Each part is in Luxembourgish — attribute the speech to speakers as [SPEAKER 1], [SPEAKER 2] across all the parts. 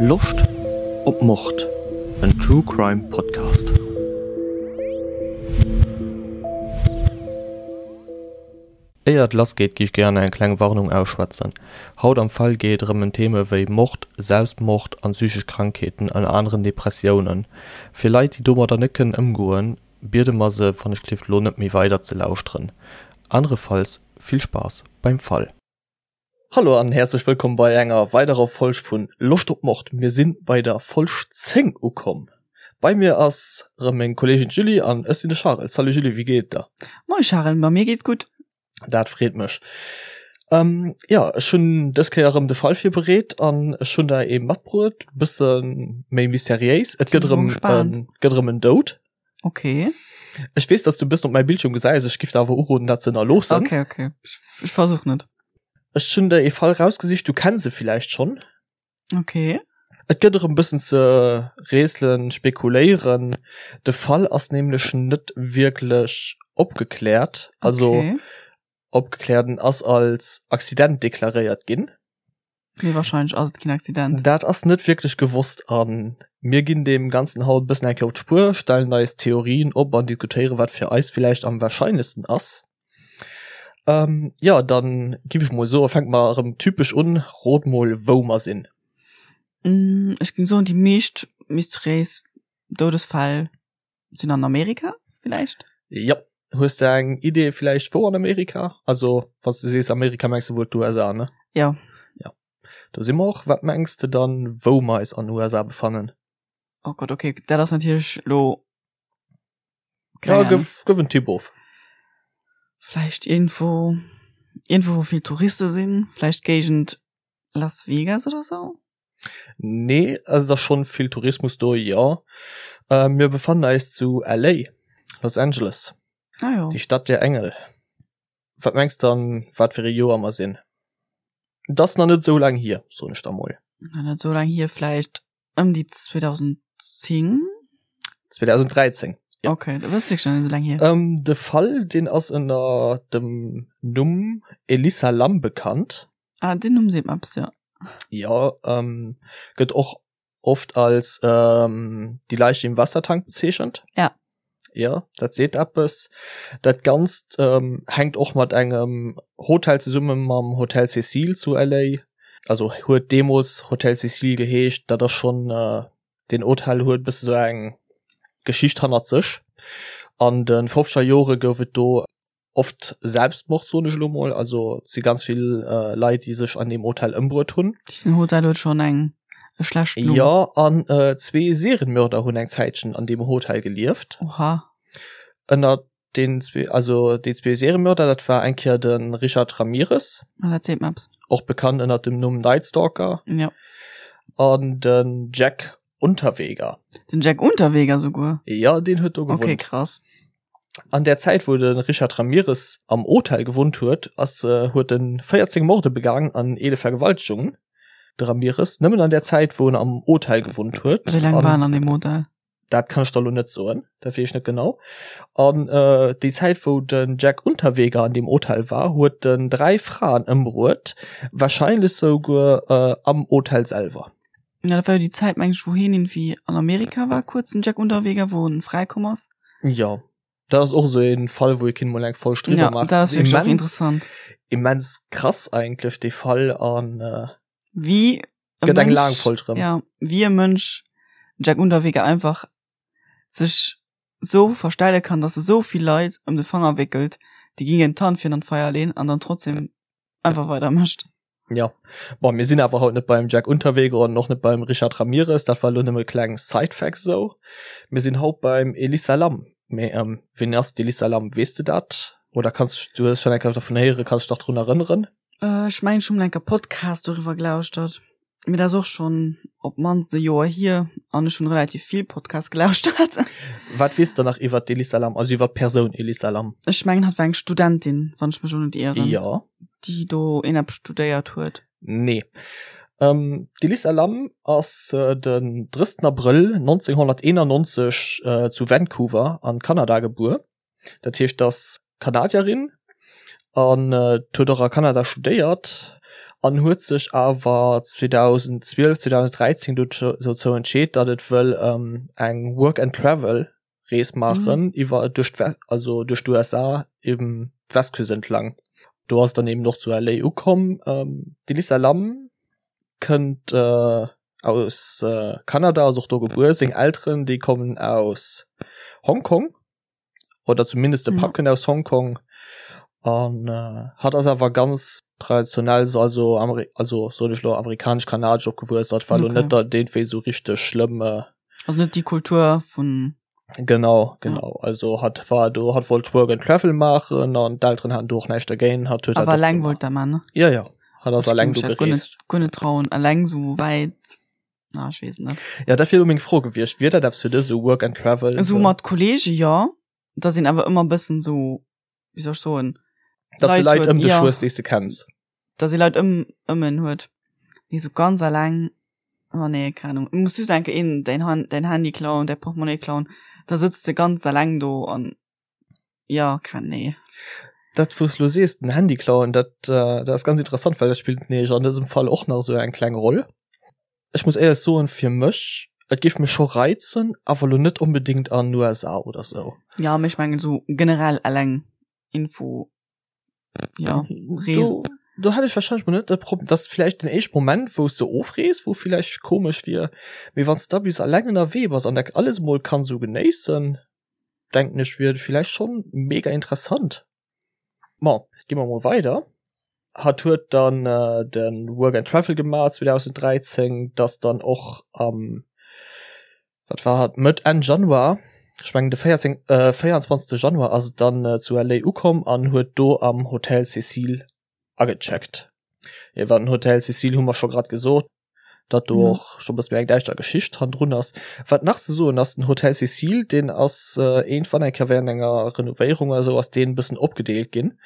[SPEAKER 1] Loscht op Mord? En True Crime Podcast. Éier et lass geet gi ech gären eng kleng Warnung ausschwätzen. Haut am Fall geet et erëm en Theme wéi Mord, Selbstmord an psychesch Krankheeten, ënner aneren Depressiounen. Fir Leit déi domadder net kënnen ëmgoen, biede mer se wann ech gelift lo net méi weider ze lauschteren. Anerefalls vill Spaass beim Fall. Hallo an häerzlech wëllkomm bei enger weiderer Folg vun Loscht op Mord. Mir sinn bei der Folg 10 ukomm. Bei mir ass rëm meng Kolleegin d'Julie an ech sinn de Charel. Salut Julie, wéi geet et der?
[SPEAKER 2] Moie Charel, ma mir geet gutt.
[SPEAKER 1] Dat freet mech. Ähm, jo, ech hunn dës Kéier erëm de Fall virbereet an ech hunn der ee matbruet, bësse méi mysteriéis. Et gëtt erëm gëtt erëm en Doud.
[SPEAKER 2] Okay.
[SPEAKER 1] Ech weess, dass du e bëssen op mäi Bildschirm gesäis, ech giff der awer uroden, dat ze ënnerloossen.
[SPEAKER 2] Okay, okay. Ech, ech versuch net.
[SPEAKER 1] Ech hunn der ee Fall rausgesicht, du kenns e villäicht schonn.
[SPEAKER 2] Okay.
[SPEAKER 1] Et gëtt erëm bëssen ze rätselen, spekuléieren. De Fall ass nämlech net wierklech opgekläert. Also
[SPEAKER 2] Okay.
[SPEAKER 1] opgekläert, en ass als Accident deklaréiert ginn.
[SPEAKER 2] Mee wahrscheinlech ass et keen Accident.
[SPEAKER 1] Dat ass net wierklech gewosst a mir ginn deem Ganzen haut e bëssen eng Kéier op d'Spuer, stellen eis Theorien op an diskutéieren, wat fir eis villäicht am warscheinlechsten ass. Ähm, jo, dann giff ech mol soen, fänke mer erëm typesch un, Rot mol, wou mer sinn.
[SPEAKER 2] Ech géing soen, déi meescht mysteriéis Doudesfäll sinn an Amerika villäicht?
[SPEAKER 1] Jop. Hues de eng Idee villäicht wou an Amerika? Also wann s de sees Amerika mengs de wuel d'USA, ne?
[SPEAKER 2] Jo.
[SPEAKER 1] Jo. Do si mer och. Wat mengs de dann wou mer eis an USA befannen?
[SPEAKER 2] Oh Gott, okay, dat ass natierlech lo
[SPEAKER 1] Ja, gëff, gëff en Tipp of.
[SPEAKER 2] Vläicht iergendwou, iergendwou wou vill Touriste sinn, vläicht Géigend Las Vegas oder sou?
[SPEAKER 1] Nee, also et ass schonn vill Tourismus do, jo. Mir befannen eis zu LA, Los Angeles.
[SPEAKER 2] Ah jo.
[SPEAKER 1] Die Stadt der Engel. Wat mengs de an wat fir ee Joer mer sinn? Et ass nach net esou laang hier, soen ech der mol.
[SPEAKER 2] Nach net esou laang hier, vläicht ëm déi 2010?
[SPEAKER 1] 2013,
[SPEAKER 2] jo. Okay, dat ass wierklech nach net esou laang hier.
[SPEAKER 1] De Fall, deen ass ënner dem Numm Elisa Lam bekannt.
[SPEAKER 2] Ah, den Numm seet mer eppes, jo.
[SPEAKER 1] Jo, ähm, gëtt och oft als ähm, die Leiche im Wassertank bezeechent.
[SPEAKER 2] Ja.
[SPEAKER 1] Ja, dat seet eppes. Dat Ganzt ähm, hänkt och mat engem Hotel zesumme mam Hotel Cecil zu LA. Also huet deemools Hotel Cecil geheescht, dat ass schonn äh, den Hotel huet bësse sou eng Geschicht hannert sech. An de fofzeger Jore gouf et do oft Selbstmord soen ech elo mol, also et si ganz vill äh, Leit déi sech an deem Hotel ëmbruet hunn.
[SPEAKER 2] Den Hotel huet schonn eng e schlecht
[SPEAKER 1] Numm. Jo an äh, zwee Serienmörder hunn eng Zäitchen an deem Hotel gelieft.
[SPEAKER 2] Oha.
[SPEAKER 1] Ënner den zwee, also déi zwee Serienmörder, dat war eng Kéier de Richard Ramirez.
[SPEAKER 2] Ah, dat seet mer eppes.
[SPEAKER 1] Och bekannt ënner dem Numm Night Stalker.
[SPEAKER 2] Jo.
[SPEAKER 1] An den Jack Unterweger.
[SPEAKER 2] Den Jack Unterweger souguer?
[SPEAKER 1] Jo, deen huet do
[SPEAKER 2] gewunnt. Okay, krass.
[SPEAKER 1] An der Zäit wou de Richard Ramirez am Hotel gewunnt huet, ass huet en 14 Morde begaangen an 11 Vergewaltegungen. De Ramirez nëmmen an der Zäit wou en am Hotel gewunnt huet.
[SPEAKER 2] Wéi laang war en an deem Hotel?
[SPEAKER 1] Dat kann ech der lo net soen, dat weess ech net genau. An déi Zäit wou den Jack Unterweger an deem Hotel war, huet en 3 Fraen ëmbruet, warscheinlech souguer am Hotel selwer.
[SPEAKER 2] Ja, dat war jo déi Zäit, meng ech, wou hien irgendwie an Amerika war, kuerz, den Jack Unterweger, wou en fräikomm ass.
[SPEAKER 1] Jo, dat ass och esou ee Fall, wou ee kinnt mol eng Folg driwwer
[SPEAKER 2] Ja,
[SPEAKER 1] maachen.
[SPEAKER 2] dat ass wierklech och interessant.
[SPEAKER 1] Immens krass eigentlech, dee Fall, an
[SPEAKER 2] Wéi e
[SPEAKER 1] gëtt eng
[SPEAKER 2] Mënsch,
[SPEAKER 1] laang Folg erëm.
[SPEAKER 2] ja, wéi e Mënsch, den Jack Unterweger, einfach sech sou verstelle kann, dass e sou vill Leit ëm de Fanger wéckelt, déi gingen d'Hand fir en an d'Feier leen an dann trotzdem einfach weider mécht.
[SPEAKER 1] Ja, bon, mir sinn awer haut net beim Jack Unterweger an och net beim Richard Ramirez, dat war lo nëmme kleng Side-Facts esou. Mir sinn haut beim Elisa Lam. Mee ähm, wien ass d'Elisa Lam, weess de dat? Oder kanns du hues schonn eng Kéier dervun héieren, kanns dech nach drun erënneren?
[SPEAKER 2] Äh, ech mengen, ech hu mol eng Kéier Podcast doriwwer gelauschtert. Mee dat ass och schonn op d'mannst e Joer hier an ech hunn relativ vill Podcasts gelauschtert.
[SPEAKER 1] Wat weess de nach iwwer d'Elisa Lam, also iwwer d'Persoun Elisa Lam?
[SPEAKER 2] Ech mengen, hatt war eng Studentin, wann ech mech elo net ieren.
[SPEAKER 1] Jo.
[SPEAKER 2] Déi do een eppes studéiert huet.
[SPEAKER 1] Nee. Ähm, D'Elisa Lam ass den 30 Abrëll 1991 zu Vancouver an Kanada gebuer. Dat heescht, ass Kanadierin an huet och a Kanada studéiert. An huet sech awer 2012, 2013 dozou entscheet, datt et wëll eng Work and Travel Rees maachen iwwer duerch d'West, also duerch d'USA eben d'Westküst entlang. Do ass et dann eben och zu LA ukomm. D'Elisa Lam kënnt aus Kanada, ass och do gebuer. Seng Elteren déi kommen aus Hongkong oder zumindest de Papp kënnt aus Hongkong an hatt ass awer ganz traditionell so also Ameri also soen ech lo amerikanesch-kanadesch opgewuess. Dat war lo net der deen wéi sou richteg schlëmm.
[SPEAKER 2] Also net déi Kultur vun.
[SPEAKER 1] Genau, genau. Ja. Also hat war do hat wollt Work and Travel maachen an d'Elteren haten do och näischt dergéint. Hat
[SPEAKER 2] huet Awer alleng wollt der man, ne?
[SPEAKER 1] Ja, ja. Hat ass alleng do
[SPEAKER 2] gereest. Guer net trauen, alleng sou wäit. Na, ech weess net.
[SPEAKER 1] Ja, dat wier elo meng Fro gewiescht. Wier dat eppes fir dech, sou Work and Travel?
[SPEAKER 2] Esou mat Kollege jo. Da sinn awer ëmmer bëssen sou, wéi soll ech soen,
[SPEAKER 1] Datt de Leit ëm dech hues, déi s de kenns.
[SPEAKER 2] Datt ee Leit ëm ëm en huet. Mee sou ganz alleng, oh nee, keng Ahnung. Et muss just eng Kéier een däin Han däin Handy klauen, däi Portemonnaie klauen, da sëtz de ganz alleng do an jo, keng nee.
[SPEAKER 1] Dat wou s lo sees, den Handy klauen, dat dat ass ganz interessant, well dat spillt nämlech an dësem Fall och nach esou eng kleng Roll. Ech muss éierlech soen, fir mech, et géif mech scho reizen, awer lo net onbedéngt an USA oder sou.
[SPEAKER 2] Jo, mee ech mengen esou generell eleng Info, jo,
[SPEAKER 1] Reesen. Do, do hätt ech wahrscheinlech mol net de Problem, dat ass vläicht den éischte Moment, wou s de ofrees, wou vläicht komesch wier, mee wann s de da bis eleng ënnerwee bass an dat alles mol kann sou genéissen, denken ech, wier et vläicht schonn mega interessant. Bon, gi mer mol weider. Hatt huet dann de Work and Travel gemaach 2013, dass dann och am, wat war hatt, Mëtt, Enn Januar, ech mengen de 14, 24. Januar ass et dann zu LA ukomm an huet do am Hotel Cecil agecheckt. Iwwer den Hotel Cecil hu mer scho grad gesot, datt do och scho bësse méi eng däischter Geschicht hannendrun ass. Wat nach ze soen ass, den Hotel Cecil, deen ass iergendwann eng Kéier während enger Renovéierung oder sou ass deen e bëssen opgedeelt ginn.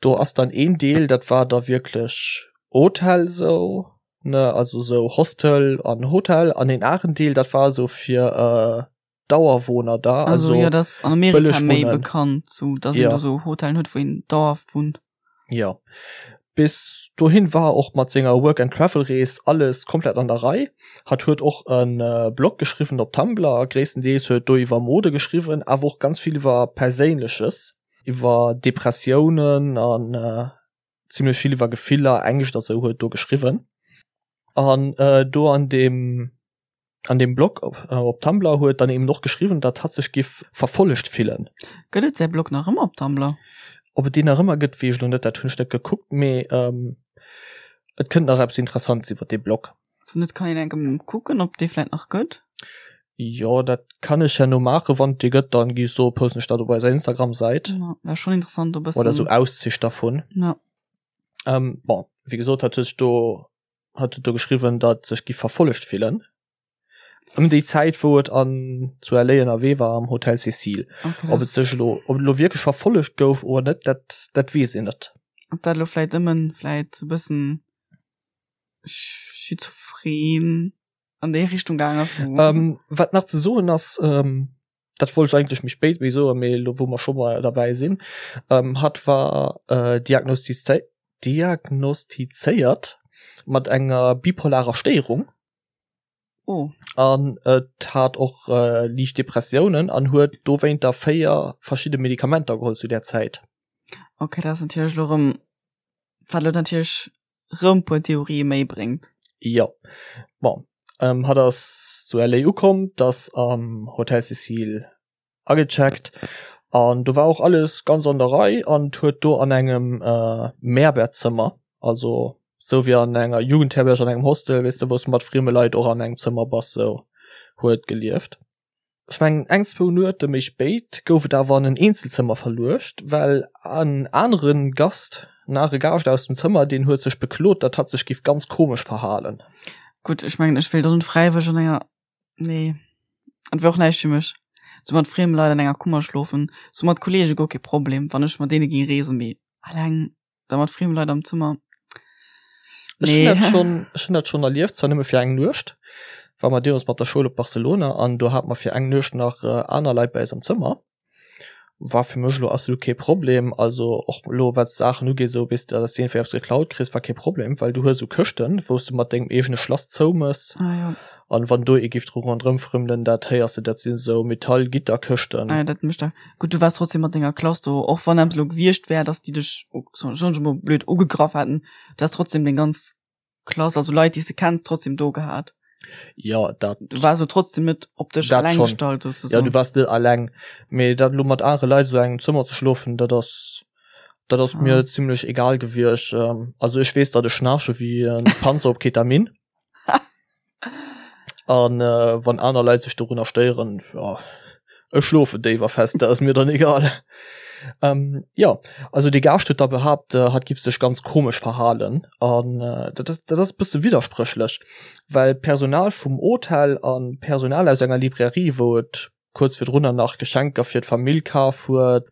[SPEAKER 1] Do ass dann een Deel, dat war da wierklech Hotel sou, ne, also sou Hostel an Hotel, an een aneren Deel, dat war sou fir Dauerwohner da,
[SPEAKER 2] also, also ja, das an Amerika méi bekannt, so dass ja. een do so Hotellen huet, wou een dauerhaft wunnt.
[SPEAKER 1] Ja. Bis dohin war och mat senger Work and Travel Rees alles komplett an der Rei. Hat huet och en äh, Blog geschriwwen op Tumblr, gréisstendeels huet do iwwer Mode geschriwwen, awer och ganz vill iwwer Perséinleches, iwwer Depressiounen an äh, zimmlech vill iwwer Gefiller, Ängscht a sou huet do geschriwwen. An äh, do an dem an dem Blog op, äh, op Tumblr huet dann eben och geschriwwen, datt hatt sech giff verfollegt fillen.
[SPEAKER 2] Gëtt et säi Blog nach ëmmer op Tumblr?
[SPEAKER 1] Ob et deen nach ëmmer gëtt, weess ech lo net, dat hunn ech net gekuckt, mee ähm, et kënnt nach eppes Interessantes iwwer dee Blog.
[SPEAKER 2] Wann net, kann een enke kucken, ob dee vläit nach gëtt.
[SPEAKER 1] Jo, dat kann ech herno maachen. Wann et dee gëtt, dann gi ech soen, posten ech dat op eiser Instagram-Säit.
[SPEAKER 2] Ja, wär schonn interessant, e
[SPEAKER 1] bëssen. Oder sou Auszich dervun.
[SPEAKER 2] Ja.
[SPEAKER 1] Ähm, bon, wéi gesot, hat huet sech do hat huet do geschriwwen, datt sech gi verfollegt fillen. Ëm déi Zäit, wou et an zu LA ënnerwee war am Hotel Cecil.
[SPEAKER 2] Okay,
[SPEAKER 1] Ob et sech elo, ob et elo wierklech verfollegt gouf oder net, dat, dat weess een net.
[SPEAKER 2] Ob dat elo vläit ëmmen vläit sou bëssen schizophren an déi Richtung gaang ass.
[SPEAKER 1] Ähm, wat nach ze soen ass, ähm, dat wollt ech eigentlech méi spéit méi soen, mee elo wou mer scho mol derbäi sinn, ähm, hatt war äh, diagnostizé diagnostizéiert mat enger bipolarer Stéierung.
[SPEAKER 2] Oh.
[SPEAKER 1] An et hat och äh, liicht Depressiounen an huet dowéinter 4 verschidde Medikamenter geholl zu där Zäit.
[SPEAKER 2] Okay, dat ass natierlech elo rëm, wat elo natierlech rëm puer Theorië méi bréngt.
[SPEAKER 1] Jo. Bon, ähm, hatt ass zu LA ukomm, d'ass am Hotel Cecil agecheckt an do war och alles ganz an der Rei an huet do an engem äh, Mehrbettzëmmer, also sou wéi an enger Jugendherberg, an engem Hostel, weess de, wou s de mat frieme Leit och an engem Zëmmer bass, sou huet gelieft. Ech mengen eng, zwou Nuete méi spéit gouf et awer an en Eenzelzëmmer verluecht, well en anere Gast, en anere Gaascht aus dem Zëmmer, deen huet sech beklot, datt hatt sech giff ganz komesch verhalen.
[SPEAKER 2] Gutt, ech mengen, ech wéilt och net fräiwëlleg an enger, nee, et wär och näischt fir mech, sou mat frieme Leit an enger Kummer schlofen, sou mat Kollege guer kee Problem, wann ech mat deene géing reesen, mee alleng. Da mat friemen Leit am Zëmmer.
[SPEAKER 1] Ech hunn dat schonn, ech hunn dat schonn erlieft, zwar nëmme fir eng Nuecht, war mer deemools mat der Schoul op Barcelona an do hate mer fir eng Nuecht nach aner Leit bei eis am Zëmmer. War fir mech elo absolut kee Problem. Also och elo wat d'Saachen ugeet, esou weess de, dass de iergendwéi eppes geklaut kriss, war kee Problem, well du hues esou Këschten, wou s de mat dengem eegene Schlass zoumëss.
[SPEAKER 2] Ah jo.
[SPEAKER 1] An wann do ee giff dru ronderëm frëmmelen, dat héiers de, dat sinn esou Metallgitterkëschten.
[SPEAKER 2] Ah jo, dat mécht da. Gutt, du waars trotzdem mat denger Klass do, och wann eppes elo gewiescht wär, dass déi dech, soen ech emol blöd, ugegraff hätten, du häss trotzdem deng ganz Klass, also Leit, déi s de kenns, trotzdem do gehat.
[SPEAKER 1] Ja, dat.
[SPEAKER 2] Du waars jo trotzdem net op dech
[SPEAKER 1] Dat
[SPEAKER 2] alleng
[SPEAKER 1] schon.
[SPEAKER 2] gestallt,
[SPEAKER 1] Ja,
[SPEAKER 2] sozusagen.
[SPEAKER 1] du waars net alleng. Mee dat elo mat anere Leit esou engem Zëmmer ze schlofen, dat ass, dat ass
[SPEAKER 2] Ah.
[SPEAKER 1] mir zimlech egal gewiescht. Ähm, also ech weess, datt ech schnaarche wéi en Panzer op Ketamin. An äh, wann aner Leit sech dorunner stéieren, ja, ech schlofen déif a fest, dat ass mir dann egal. Ähm, ja, also de Gaascht huet da behaapt, äh, hatt giff sech ganz komesch verhalen. An äh, dat ass, dat ass e bësse widderspréchlech, well Personal vum Hotel an Personal aus enger Librairie, wou et kuerz virdrunner nach Geschenker fir d'Famill kaf huet,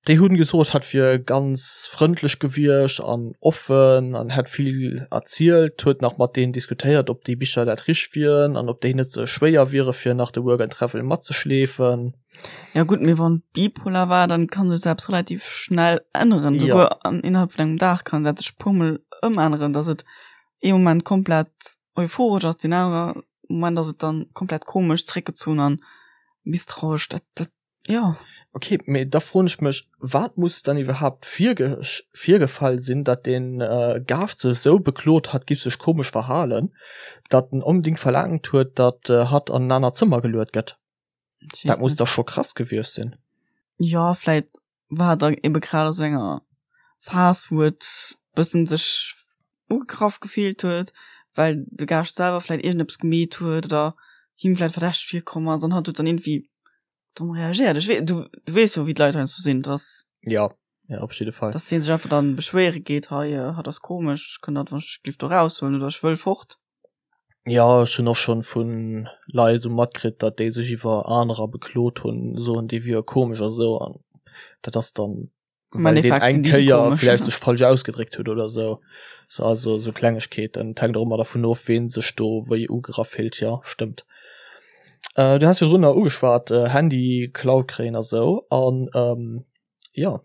[SPEAKER 1] Déi hunn gesot, hatt wier ganz frëndlech gewiescht an offen an hätt vill erzielt, huet nach mat deenen diskutéiert, ob déi Bicher dat richteg wieren an ob déi net ze schwéier wiere fir nach de Work and Travel matzeschleefen.
[SPEAKER 2] Ja gutt, mee wann bipolar war, dann kann sech dat eppes relativ schnell änneren,
[SPEAKER 1] Ja.
[SPEAKER 2] souguer an innerhalb vun engem Dag kann dat sech puermol ëmänneren, dass et ee Moment komplett euphoresch ass, deen anere Moment ass et dann komplett komesch, zréckgezunn an misstrauesch. Dat, dat
[SPEAKER 1] Jo. Ok, mee da froen ech mech, wat muss dann iwwerhaapt virgefall sinn, datt dee Gaascht sech esou beklot, hatt giff sech komesch verhalen, datt en onbedingt verlaangt huet, datt hatt an en anert Zëmmer geluet gëtt? Dat muss da scho krass gewiescht sinn.
[SPEAKER 2] Jo, vläit war et da ebe grad a sou enger Phas, wou et bëssen sech ugegraff gefillt huet, well de Gaascht selwer vläit iergendeppes gemeet huet oder him vläit verdächteg virkomm ass an hatt huet dann iergendwéi domm reagéiert. Ech wee, du, du weess jo, wéi d'Leit heiansdo sinn, dass.
[SPEAKER 1] Ja, ja, op jidde Fall.
[SPEAKER 2] Dass hie sech einfach dann beschwéiere geet, hei, hatt ass komesch, kënnt der wann ech géif do raushuelen oder ech wëll fort.
[SPEAKER 1] Ja, ech hunn och schonn vu Leit esou matkritt, datt déi sech iwwer anerer beklot hunn, soen, déi wiere komesch a sou, an dat ass dann
[SPEAKER 2] Am
[SPEAKER 1] well deen
[SPEAKER 2] Endeffekt
[SPEAKER 1] eng
[SPEAKER 2] sinn déi déi
[SPEAKER 1] Kéier
[SPEAKER 2] komesch.
[SPEAKER 1] vläicht sech falsch ausgedréckt huet oder sou. So, also sou Klengegkeeten. Et hänkt och ëmmer dervun of, ween sech do wéi ugegraff fillt, jo, stëmmt. Äh, du has virdrunner ugeschwat, äh, Handy geklaut kréien a sou, an ähm, jo,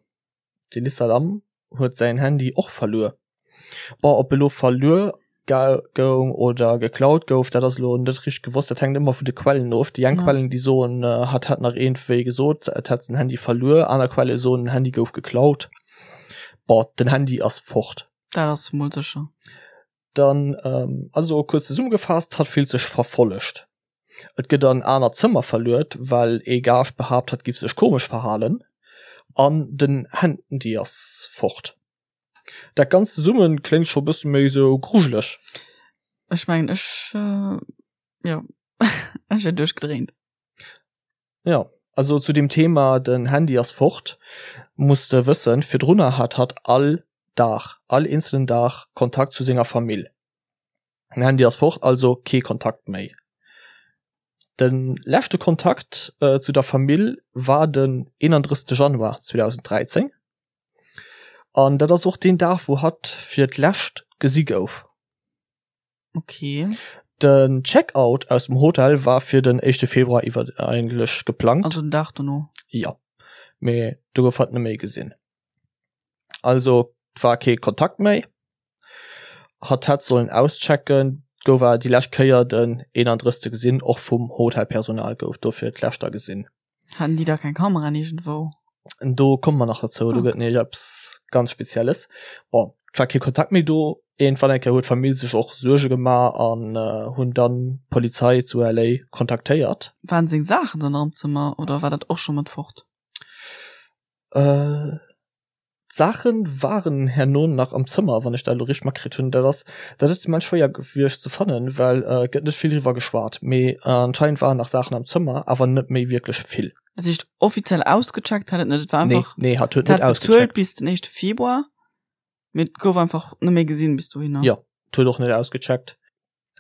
[SPEAKER 1] d'Elissa Lam huet säin Handy och verluer. Bon, ob elo verluer goung oder geklaut gouf, dat ass elo net richteg gewosst. Dat hänkt ëmmer vun de Quellen of. Déi eng
[SPEAKER 2] Ja.
[SPEAKER 1] Quellen, déi soen, hatt hätt nach iergendwéi gesot, et hätt den Handy verluer. Aner Quelle soen, den Handy gouf geklaut. Bon, den Handy ass fort.
[SPEAKER 2] Dat ass mol sécher.
[SPEAKER 1] Dann, also kuerz zesummegefaasst, hatt fillt sech verfollegt. Et gëtt an aner Zëmmer verluet, well ee Gaascht behaapt, hatt giff sech komesch verhalen. An den Handy ass fort. Dat Ganzt zesummen kléngt scho bësse méi sou grujeleg.
[SPEAKER 2] Ech mengen ech jo ech wier duerchgedréint.
[SPEAKER 1] Jo, also zu dem Thema den Handy ass fort, muss de wëssen, virdrunner hat hatt all Dag, all eenzelen Dag Kontakt zu senger Famill. Den Handy ass fort, also kee Kontakt méi. De leschte Kontakt zu der Famill war den 31 Januar 2013. An dat ass och deen Dag, wou hatt fir d'lescht gesi gouf.
[SPEAKER 2] Okay.
[SPEAKER 1] Den Check-out aus dem Hotel war fir den éischte Februar iwwer eigentlech geplangt.
[SPEAKER 2] Also den Dag dono.
[SPEAKER 1] Jo, mee do gouf hatt net méi gesinn. Also et war kee Kontakt méi. Hatt hätt sollen auschecken, gouf awer déi lescht Kéier den 31. gesinn. Och vum Hotelpersonal gouf dofir d'lescht da gesinn.
[SPEAKER 2] Haten déi da keng Kameraen iergendwou?
[SPEAKER 1] Do komme mer nach dozou, do gëtt nämlech eppes ganz Spezielles. Bon, et war kee Kontakt méi do. Iergendwann eng Kéier huet d'Famill sech och Suerge gemaach an hunn dann d'Polizei zu LA kontaktéiert.
[SPEAKER 2] Waren seng Saachen dann nach am Zëmmer oder war dat och scho mat fort?
[SPEAKER 1] D'Saachen waren herno nach am Zëmmer, wann ech dat elo richteg matkritt hunn. Dat ass dat ass immens schwéier gewiescht ze fannen, well et gëtt net vill driwwer geschwat. Mee anscheinend waren nach Saachen am Zëmmer, awer net méi wierklech vill.
[SPEAKER 2] Dat heescht offiziell ausgecheckt hat et net, et war
[SPEAKER 1] Nee,
[SPEAKER 2] einfach,
[SPEAKER 1] nee, hat huet
[SPEAKER 2] et
[SPEAKER 1] net
[SPEAKER 2] hat bezuelt
[SPEAKER 1] ausgecheckt.
[SPEAKER 2] bis den éischte Februar, mee et gouf einfach net méi gesinn bis dohinner.
[SPEAKER 1] Jo, et huet och net ausgecheckt.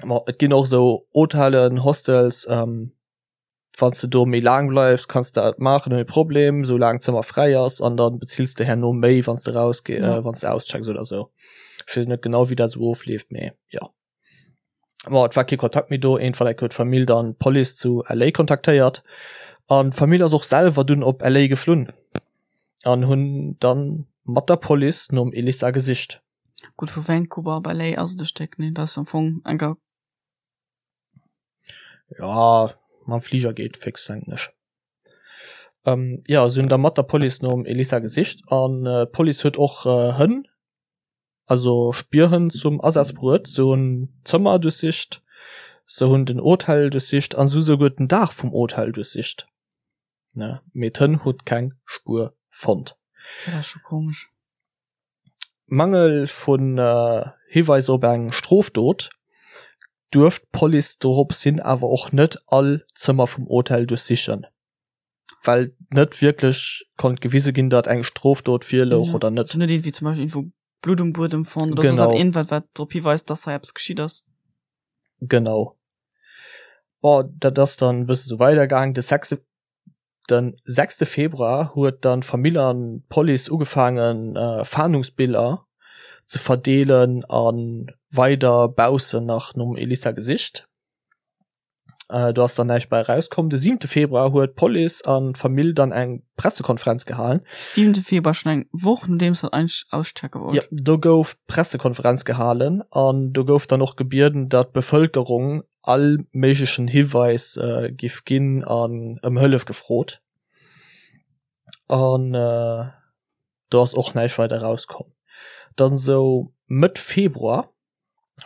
[SPEAKER 1] Ma et ginn och esou Hotellen, Hostels, wann s de do méi laang bleifs, kanns de dat maachen ouni Problem, sou laang d'Zëmmer fräi ass an dann bezills de herno méi, wann s de raus ge
[SPEAKER 2] Ja.
[SPEAKER 1] äh, wann s de auschecks oder sou. Ech weess net genau, wéi dat sou ofleeft, mee jo. Bon, et war kee Kontakt méi do. Iergendwann eng Kéier huet d'Famill dann d'Police zu LA kontaktéiert. An d'Famill ass och selwer dunn op LA geflunn an hunn dann mat der Police nom Elissa gesicht.
[SPEAKER 2] Gutt, vu Vancouver op LA ass et e Stéck, nee? Dat ass am Fong enker.
[SPEAKER 1] Ja, mam Fliger geet fix, denken ech. Ähm, ja, se hunn da mat der Police nom Elissa gesicht an d'Police huet och Hënn also Spierhënn zum Asaz bruet. Se hunn d'Zëmmer duerchsicht, se hunn den Hotel duerchsicht an se hu souguer den Daach vum Hotel duerchsicht. Ne, mee d'Hënn huet keng Spuer fonnt.
[SPEAKER 2] Dat ass scho komesch.
[SPEAKER 1] Mangel vun Hiweiser op eng Strofdot duerft d'Police dorops hin awer och net all Zëmmer vum Hotel duerchsichen. Well net wierklech konnt gewise ginn, datt eng Strofdot virlouch oder net.
[SPEAKER 2] Net iergendwéi zum Beispill iergendwou Blutt um Buedem fonnt oder soss
[SPEAKER 1] Genau.
[SPEAKER 2] iergendwat, wat drop hiweist, datt hei eppes geschitt ass.
[SPEAKER 1] Genau. Bon, dat ass dann e bësse sou weidergaang. De sechste, den sechste Februar huet dann d'Famill an d'Police ugefaangen, Fahndungsbiller ze verdeelen a weider baussen nach nom Elissa gesicht. Äh, do ass dann näischt bei erauskomm. De siwente Februar huet d'Police an d'Famill dann eng Pressekonferenz gehalen.
[SPEAKER 2] Siwente Februar, schon eng Woch nodeems dat eigentlech auschecke wollt.
[SPEAKER 1] Jo, do gouf d'Pressekonferenz gehalen an do gouf dann och gebieden, datt d'Bevëlkerung all méiglechen Hiweis äh, giff ginn an ëm Hëllef gefrot. An äh, do ass och näischt weider erauskomm. Dann sou Mëtt Februar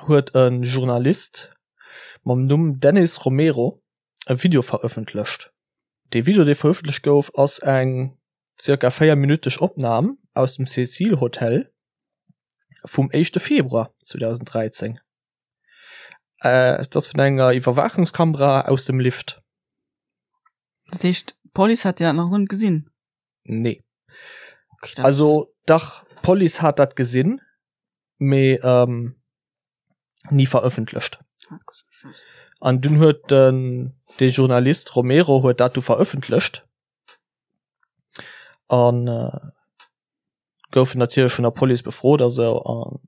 [SPEAKER 1] huet e Journalist mam Numm Dennis Romero e Video verëffentlecht. Dee Video, dee verëffentlecht gouf, ass eng zirka véierminütteg Opnam aus dem Cecil Hotel vum éischte Februar 2013. Et ass vun enger Iwwerwaachungskamera aus dem Lift.
[SPEAKER 2] Dat heescht, d'Police hat dat nach net gesinn?
[SPEAKER 1] Nee. Okay, also dach, d'Police hat dat gesinn. mee ähm, nie verëffentlecht. An dun huet den de Journalist Romero huet dat du verëffentlecht an äh, goufen natierlech vun der Police befrot a sou an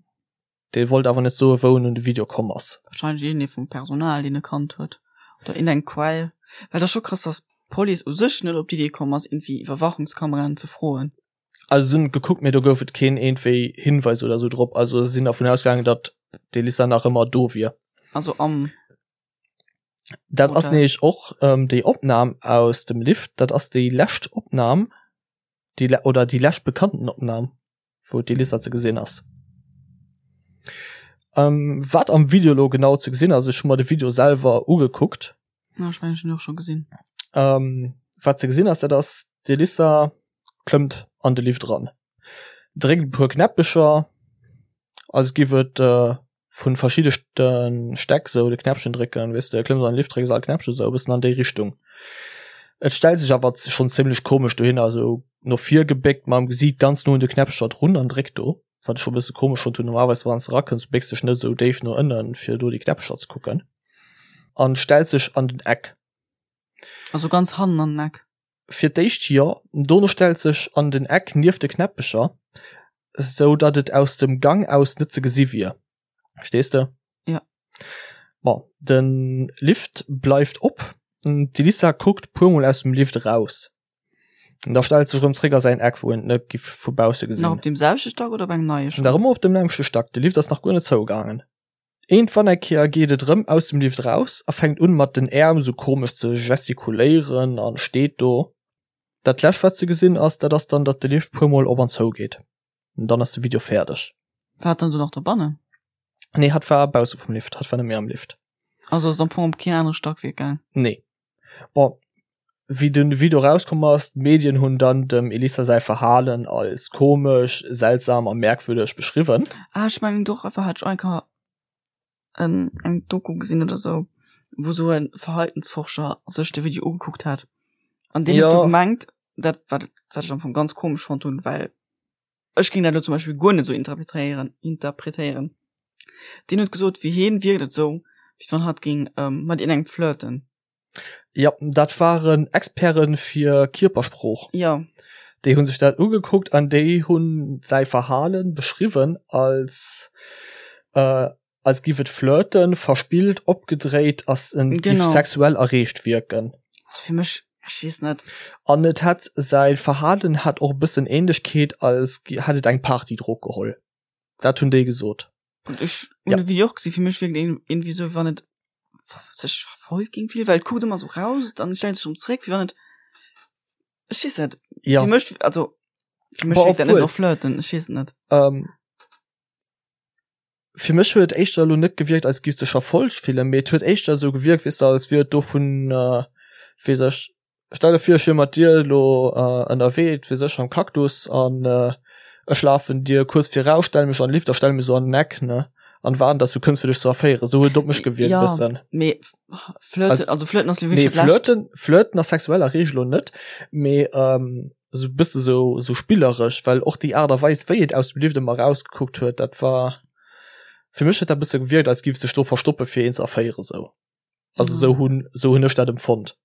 [SPEAKER 1] dee wollt awer net soe wou en un de Video komm ass.
[SPEAKER 2] Wahrscheinlech iergendee vum Personal deen e kannt huet oder iergendeng Quell, well et ass scho krass dass d'Police u sech net op d'Idee komm ass iergendwéi Iwwerwachungskameraen ze froen.
[SPEAKER 1] Also se hunn gekuckt, mee do gouf et keen iergendwéi Hinweis oder sou drop. Also se sinn dervun ausgaangen, datt d'Elissa nach ëmmer do wier.
[SPEAKER 2] Also am
[SPEAKER 1] Dat ass nämlech och ähm, déi Opnam aus dem Lift, dat ass déi lescht Opnam, déi le oder déi lescht bekannten Opnam, wou d'Elissa ze gesinn ass. Ähm, wat am Video lo genau ze gesinn ass, ech hu mer de Video selwer ugekuckt.
[SPEAKER 2] Ja, ech mengen, ech hunn och scho gesinn.
[SPEAKER 1] Ähm, wat ze gesinn ass, dat ass d'Elissa klëmmt an de Lift eran, dréckt e puer Knäppecher, als giff et äh, vun verschiddesten Stäck sou de Knäppchen drécken, weess de, klëmms an de Lift, drécks all Knäppchen, sou e bëssen an déi Richtung. Et stellt sech awer schonn zimlech komesch dohinner, sou no vir gebéckt, mam Gesiit ganz no un de Knäppcher drun an dréckt do, wat ech scho e bësse komesch fonnt hunn. Normalerweis wann s de erakënns, bécks dech net esou déif no ënnen, fir do déi Knäppcher ze kucken. An stellt sech an den Eck.
[SPEAKER 2] Also ganz hannen an den Eck?
[SPEAKER 1] Fir d'éischt jo, dono stellt sech an den Eck nieft de Knäppecher, sou datt et aus dem Gang aus net ze gesi wier. Verstees de?
[SPEAKER 2] Ja.
[SPEAKER 1] Bon, de Lift bleift op, d'Elissa kuckt puermol aus dem Lift eraus. An da stellt sech erëm zréck a säin Eck, wou en et net giff vu bausse gesinn.
[SPEAKER 2] Nach op deem selwechte Stack oder op engem neie
[SPEAKER 1] schonn? Nach ëmmer op dem nämmlechte Stack, de Lift ass nach guer net zougaangen. Iergendwann eng Kéier geet et erëm aus dem Lift raus a fänkt un mat den Äerm sou komesch ze gestikuléieren an steet do. Dat lescht wat ze gesinn ass, dat ass dann datt de Lift puer mol op an zou geet. An dann ass de Video fäerdeg.
[SPEAKER 2] War hat dann do nach dobannen?
[SPEAKER 1] Nee, hatt war bausse vum Lift, hatt war net méi am Lift.
[SPEAKER 2] Also ass et am Fong op keen anere Stackwerk gaang?
[SPEAKER 1] Nee. Bon, wéi den Video rauskomm ass, d'Medien hunn dann dem Elissa säi Verhalen als komesch, seltsam a merkwürdeg beschriwwen.
[SPEAKER 2] Ah, ech mengen doch einfach hat ech eng Kéier en eng Doku gesinn oder sou, wou sou e Verhaltensforscher sech de Video ugekuckt hat. An deen huet du gemengt, dat wat wat ech am Fong ganz komesch fonnt hunn, well ech géing dat elo zum Beispill guer net sou interpretéieren interpretéieren. Deen huet gesot, fir hien wierkt et sou, wéi wann hatt géing mat iergendengem flirten.
[SPEAKER 1] Jo, dat waren Experte fir Kierpersprooch.
[SPEAKER 2] Jo.
[SPEAKER 1] Déi hu sech dat ugekuckt an déi hunn säi Verhale beschriwwen als äh, als giff et flirten, verspillt, opgedréit ass, en giff sexuell erreegt wierken.
[SPEAKER 2] Also fir mech. Ech weess net.
[SPEAKER 1] An et hätt säi Verhalen hat och e bëssen Ähnlechkeet als hätt et eng Partydrog geholl. Dat hunn déi gesot.
[SPEAKER 2] Gutt, ech hunn de Video och gesinn, fir mech wierkt et iergendwéi esou, wéi wann et sech verfolgt géing fillen, well et kuckt ëmmer esou raus, dann stellt sech erëm zréck, wéi wann et, ech weess net,
[SPEAKER 1] Ja.
[SPEAKER 2] fir mech, also fir mech
[SPEAKER 1] Bon,
[SPEAKER 2] wierkt dat net
[SPEAKER 1] obwuel.
[SPEAKER 2] no Flirten, ech weess et net.
[SPEAKER 1] Ähm, fir mech huet et éischter elo net gewierkt, als giff sech verfolgt fillen, mee et huet éischter esou gewierkt, weess de, als wier et dovun, weess ech, Stell der vir ech wier mat dir elo ënnerwee, et wier sécher am Cactus an ech lafen dir kuerz viraus, stelle mech an den Lift a stelle mech esou an den Eck, ne, an waarden dass du kënns fir dech ze erféieren. Esou huet et op mech gewierkt e
[SPEAKER 2] Ja,
[SPEAKER 1] bëssen.
[SPEAKER 2] mee flirten, also flirten ass jo
[SPEAKER 1] Nee,
[SPEAKER 2] wierklech dat Lescht.
[SPEAKER 1] flirten, flirten ass sexuell a Reegel elo net, mee esou e bësse sou, sou spilleresch, well och déi Aart a Weis wéi et aus dem Lift ëmmer erausgekuckt huet, dat war, fir mech huet dat e bësse gewierkt als giff sech do verstoppe fir een ze erféieren esou. Also sou hunn, sou hunn ech dat empfonnt.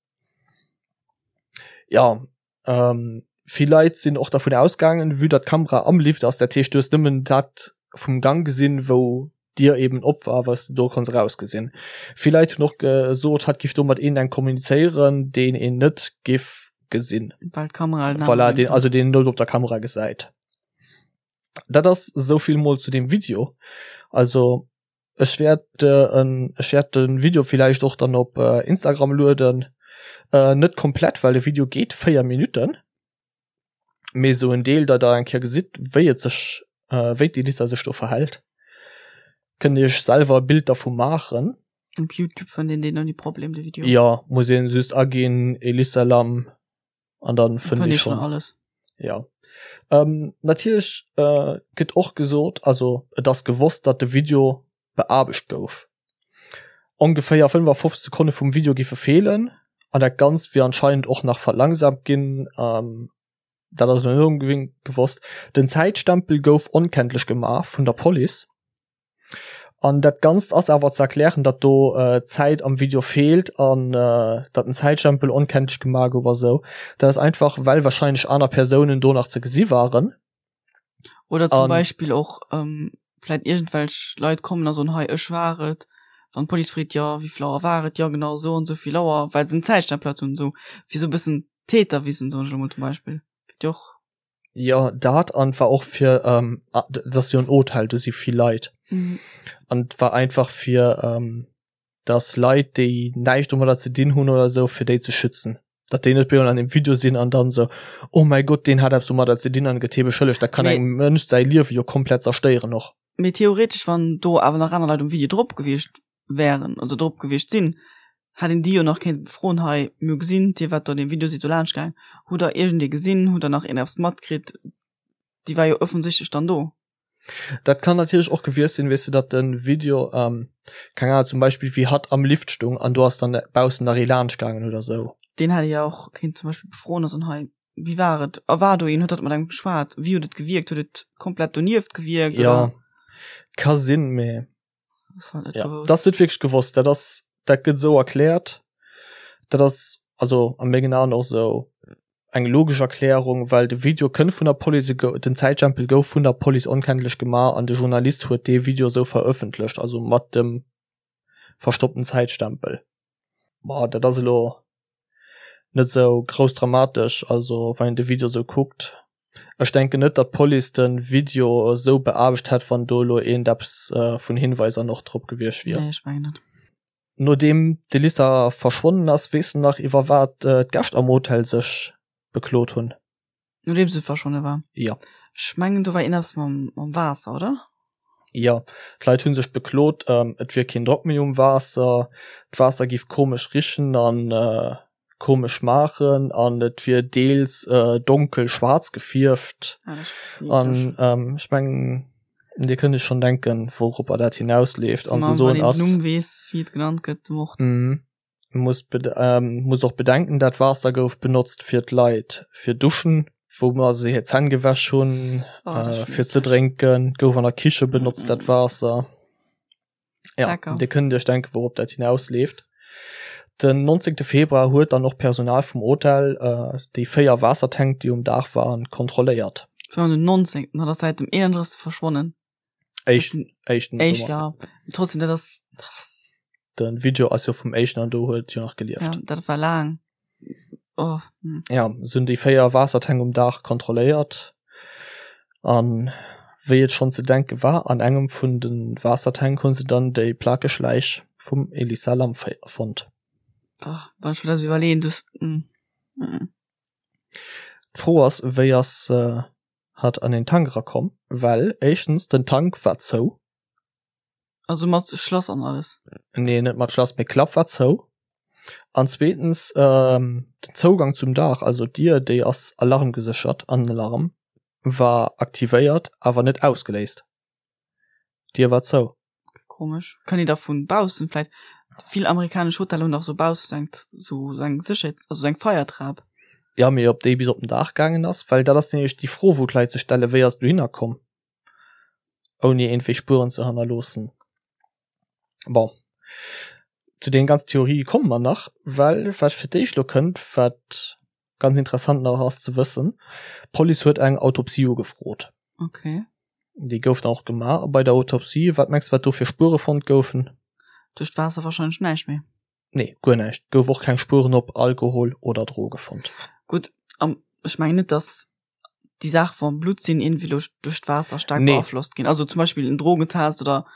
[SPEAKER 1] Ja, ähm, vill Leit sinn och dervun ausgaangen, vue datt d'Kamera am Lift ass, dat heescht du hues nëmmen dat vum Gang gesinn, wou d'Dier eben op war, wat s de do konns erausgesinn. Vill Leit hunn och gesot, hatt giff do mat een eng kommunizéieren, deen een net giff gesinn.
[SPEAKER 2] Well d'Kamera halt
[SPEAKER 1] Voilà, deen, also deen een net op der Kamera gesäit. Dat ass souvill mol zu deem Video. Also Ech wäert en ech wäert den Video villäicht och dann op Instagram lueden. Net komplett, well de Video geet 4 Minutten, mee sou en Deel, datt der eng Kéier gesitt wéi et sech wéi d'Elisa sech do verhält. Kënnt iech selwer e Bild dervu maachen.
[SPEAKER 2] Op Youtube fënnt een deen ouni Problem, de Video.
[SPEAKER 1] Jo, muss een just aginn Elisa Lam an dann fënnt ee schonn
[SPEAKER 2] alles.
[SPEAKER 1] Ja. Ähm, natierlech äh, gëtt och gesot, also et ass gewosst, datt de Video beaarbecht gouf. Ongeféier 55 Sekonne vum Video giffe feelen an dat Ganzt wier anscheinend och nach verlangsamt ginn. Ähm, dat ass elo net onbedéngt gewosst. Den Zäitstempel gouf onkenntlech gemaach vun der Police. An dat Ganzt ass awer ze erklären, datt do Zäit am Video feelt an datt den Zäitstempel onkenntlech gemaach gouf a sou. Dat ass einfach, well warscheinlech aner Persounen do nach ze gesi waren.
[SPEAKER 2] Oder zum Beispill och vläit iergendwelch Leit kommen a soen, hei ech war et. Wann d'Police freet, jo wéi vill Auer war et, jo genau esou an esou vill Auer, well se den Zäitstempel halt hunn, esou fir esou e bëssen Täterwissen, soen ech elo mol zum Beispill. Gëtt jo och.
[SPEAKER 1] Jo, dat an war och fir ähm, dat ass jo en Hotel, do si vill Leit. Mhm. An war einfach fir ähm, dass Leit, déi näischt domadder ze dinn hunn oder sou, fir déi ze schützen. Datt déi net bemol an dem Video sinn an dann sou, oh mäi Gott, deen hat eppes domadder ze dinn an gëtt hie beschëllegt. Dat kann
[SPEAKER 2] Mee-
[SPEAKER 1] engem Mënsch säi Liewe jo komplett zerstéieren och.
[SPEAKER 2] Mee theoretesch, wann do awer nach aner Leit um Video drop gewiescht wären oder drop gewiescht sinn, hätt een déi jo nach kéinte befroen, hei, mir hu gesinn, dir waart do an deem Video, sidd do laanscht gaang, hutt der iergendee gesinn, hutt der nach een eppes matkritt? Déi war jo offensichtlech dann do.
[SPEAKER 1] Dat kann natierlech och gewiescht sinn, weess de, datt de Video, keng Ahnung, zum Beispill wéi hatt am Lift stung an do ass dann baussen nach ee laanscht gaangen oder sou.
[SPEAKER 2] Deen hätt ee jo och kéint zum Beispill befroen a soen, hei, wéi war et a war do een, huet dat mat engem geschwat, wéi huet et gewierkt, huet et komplett donieft gewierkt
[SPEAKER 1] Jo,
[SPEAKER 2] oder?
[SPEAKER 1] ka sinn, mee
[SPEAKER 2] Ass halt net
[SPEAKER 1] Ja,
[SPEAKER 2] gewosst.
[SPEAKER 1] dat ass net wierklech gewosst. Dat ass, dat gëtt esou erkläert. Dat ass also a mengen Aen och esou eng logesch Erklärung, well de Video kënnt vun der Police, e gou, den Zäitstempel gouf vun der Police onkenntlech gemaach an de Journalist huet dee Video esou verëffentlecht, also mat dem verstoppten Zäitstempel. Ma dat ass elo net sou grouss dramatesch, also wann een de Video sou kuckt. Ech denken net datt d'Police de Video sou beaarbecht hätt wann do elo eent eppes vun Hinweiser nach drop gewiescht wier.
[SPEAKER 2] Nee, ech mengen net.
[SPEAKER 1] Nodeem d'Elisa verschwonnen ass, weess de nach iwwer wat d'Gäscht am Hotel sech beklot hunn?
[SPEAKER 2] Nodeems se verschwonne war?
[SPEAKER 1] Jo.
[SPEAKER 2] Ech mengen do war ierneppes mam, mam Waasser, oder?
[SPEAKER 1] Jo, d'Leit hu sech beklot, et wier keen Drock méi um Waasser, d'Waasser giff komesch richen an komesch schmaachen an et wier deels donkel schwaarz gefierft.
[SPEAKER 2] Ah, dat ass e bëssen eeklech.
[SPEAKER 1] An ech mengen, Dir kënnt Iech schonn denken, wouropper dat hinausleeft. An
[SPEAKER 2] Wann
[SPEAKER 1] se soen
[SPEAKER 2] een den
[SPEAKER 1] ass.
[SPEAKER 2] Numm weess, wéi et genannt gëtt, de Mord.
[SPEAKER 1] Muss muss och bedenken, dat Waasser gouf benotzt fir d'Leit fir Duschen, wou mer se hir Zänn gewäsch hunn, fir ze drénken, gouf an der Kiche benotzt dat Waasser. Ja, Dir kënnt Iech denken, wourop dat hinausleeft. Den 19. Februar huet dann och Personal vum Hotel déi 4 Waassertänk, déi um Daach waren, kontrolléiert.
[SPEAKER 2] Den 19. Dat ass säit dem 31. verschwonnen.
[SPEAKER 1] Éischten, éischten
[SPEAKER 2] Éischt, ja. Trotzdem, dat ass, dat ass.
[SPEAKER 1] Den Video ass jo vum éischten an do huet jo nach gelieft.
[SPEAKER 2] Ja, dat war laang. Oh, hm.
[SPEAKER 1] Ja, se hunn déi 4 Waassertänk um Daach kontrolléiert an wéi et schonn ze denke war, an engem vun de Waassertänk hu se dann déi plakeg Läich vum Elisa Lam fonnt.
[SPEAKER 2] Oh, wann ech mir dat iwwerleeën, dus, hm. Hm.
[SPEAKER 1] D'Fro ass, wéi ass hatt an den Tank erakomm? Well éischtens, den Tank war zou.
[SPEAKER 2] Also mat Schlass an alles?
[SPEAKER 1] Nee, net mat Schlass, mee Klapp war zou. An zweetens, ähm, den Zougang zum Daach, also d'Dier, déi ass alarmgeséchert an den Alarm war aktivéiert, awer net ausgeléist. D'Dier war zou.
[SPEAKER 2] Komesch. Kann ee da vun baussen vläit, vill amerikanesch Hoteller hunn dach sou baussen eng, sou eng Sécherheets-, also sou eng Feiertrap.
[SPEAKER 1] Ja, mee ob déi bis op den Daach gaangen ass? Well dat ass nämlech déi Fro, wou d'Leit sech stellen, Wéi ass et dohinner komm? Ouni iergendwéi Spueren ze hannerloossen. Bon, zu deenen ganzen Theorië komme mer nach, well wat fir d'éischt elo kënnt, wat ganz interessant nach ass ze wëssen, d'Police huet eng Autopsie ugefrot.
[SPEAKER 2] Okay.
[SPEAKER 1] Déi gouf dann och gemaach a bei der Autopsie, wat mengs de wat do fir Spuere fonnt goufen?
[SPEAKER 2] Duerch d'Waasser wahrscheinlech näischt méi.
[SPEAKER 1] Nee, guer näischt. Gouf och keng Spueren op Alkohol oder Droge fonnt.
[SPEAKER 2] Gutt, an ech mengen net, dass déi Saach vam Blutt sinn irgendwie lo duerch d'Waasser staark
[SPEAKER 1] Nee.
[SPEAKER 2] beaflosst ginn. Also zum Beispill en Drogentest oder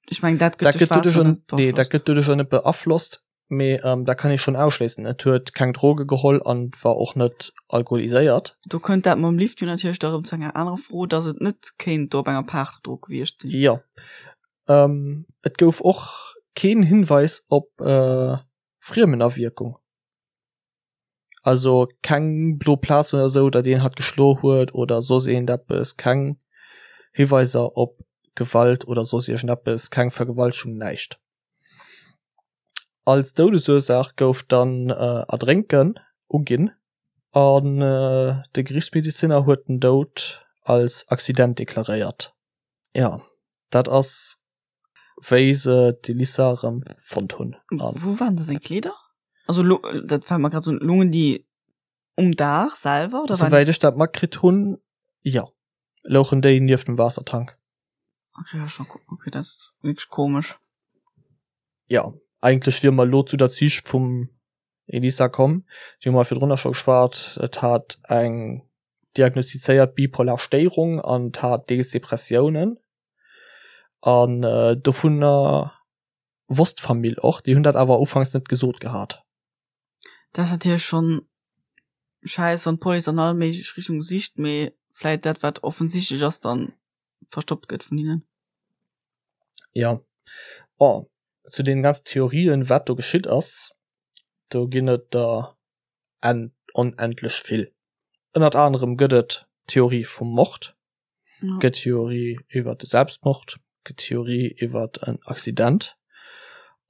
[SPEAKER 2] ech mengen dat
[SPEAKER 1] Dat
[SPEAKER 2] gëtt duerch
[SPEAKER 1] gëtt doduerch
[SPEAKER 2] d'Waasser
[SPEAKER 1] jo
[SPEAKER 2] net
[SPEAKER 1] nee, dat
[SPEAKER 2] beaflosst.
[SPEAKER 1] gëtt doduerch jo net beaflosst, mee ähm, dat kann ee schonn ausschléissen. Et huet keng Droge geholl an war och net alkoholiséiert.
[SPEAKER 2] Do kënnt dat mam Lift jo natierlech da rëm zu enger anerer Fro, dass et net kéint do op enger Partydrog gewiescht sinn.
[SPEAKER 1] Jo. Ähm, et gouf och keen Hinweis op äh, Friemenawierkung. Also keng blo Plazen oder sou, datt een hatt geschlo huet oder soss iergendeppes, keng Hiweiser op Gewalt oder soss iergendeppes, keng Vergewaltegung, näischt. Als Doudesursaach gouf dann Erdrénken uginn an de Geriichtsmedeziner huet den Doud als Accident deklaréiert. Jo, dat ass wéi se d'Elisa erëm fonnt hunn.
[SPEAKER 2] Wou waren da seng Kleeder? Also lo, dat fält mer grad sou, loungen déi um Daach selwer
[SPEAKER 1] oder? Souwäit ech dat matkritt hunn, jo, louchen déi nieft dem Waassertank.
[SPEAKER 2] Okay, ja, schon, okay, dat ass wierklech komesch.
[SPEAKER 1] Jo, eigentlech wiere mer elo zu der Psych vum Elisa komm. Déi hu mer virdrunner scho geschwat. Et hat eng diagnostizéiert bipolar Stéierung an et hat deels Depressiounen. An dovunner wosst d'Famill och. Déi hunn dat awer ufanks net gesot gehat.
[SPEAKER 2] Dat ass natierlech schonn schäiss, wann d'Police an all méiglech Richtunge sicht, mee vläit dat, wat offensichtlech ass, dann verstoppt gëtt vun hinnen.
[SPEAKER 1] Jo. Bon, zu deenen ganzen Theorien, wat do geschitt ass, do ginn et der onendlech vill. Ënnert anerem gëtt et d'Theorie vum Mord, gëtt Theorie iwwer de Selbstmord, gëtt Theorie iwwer en Accident.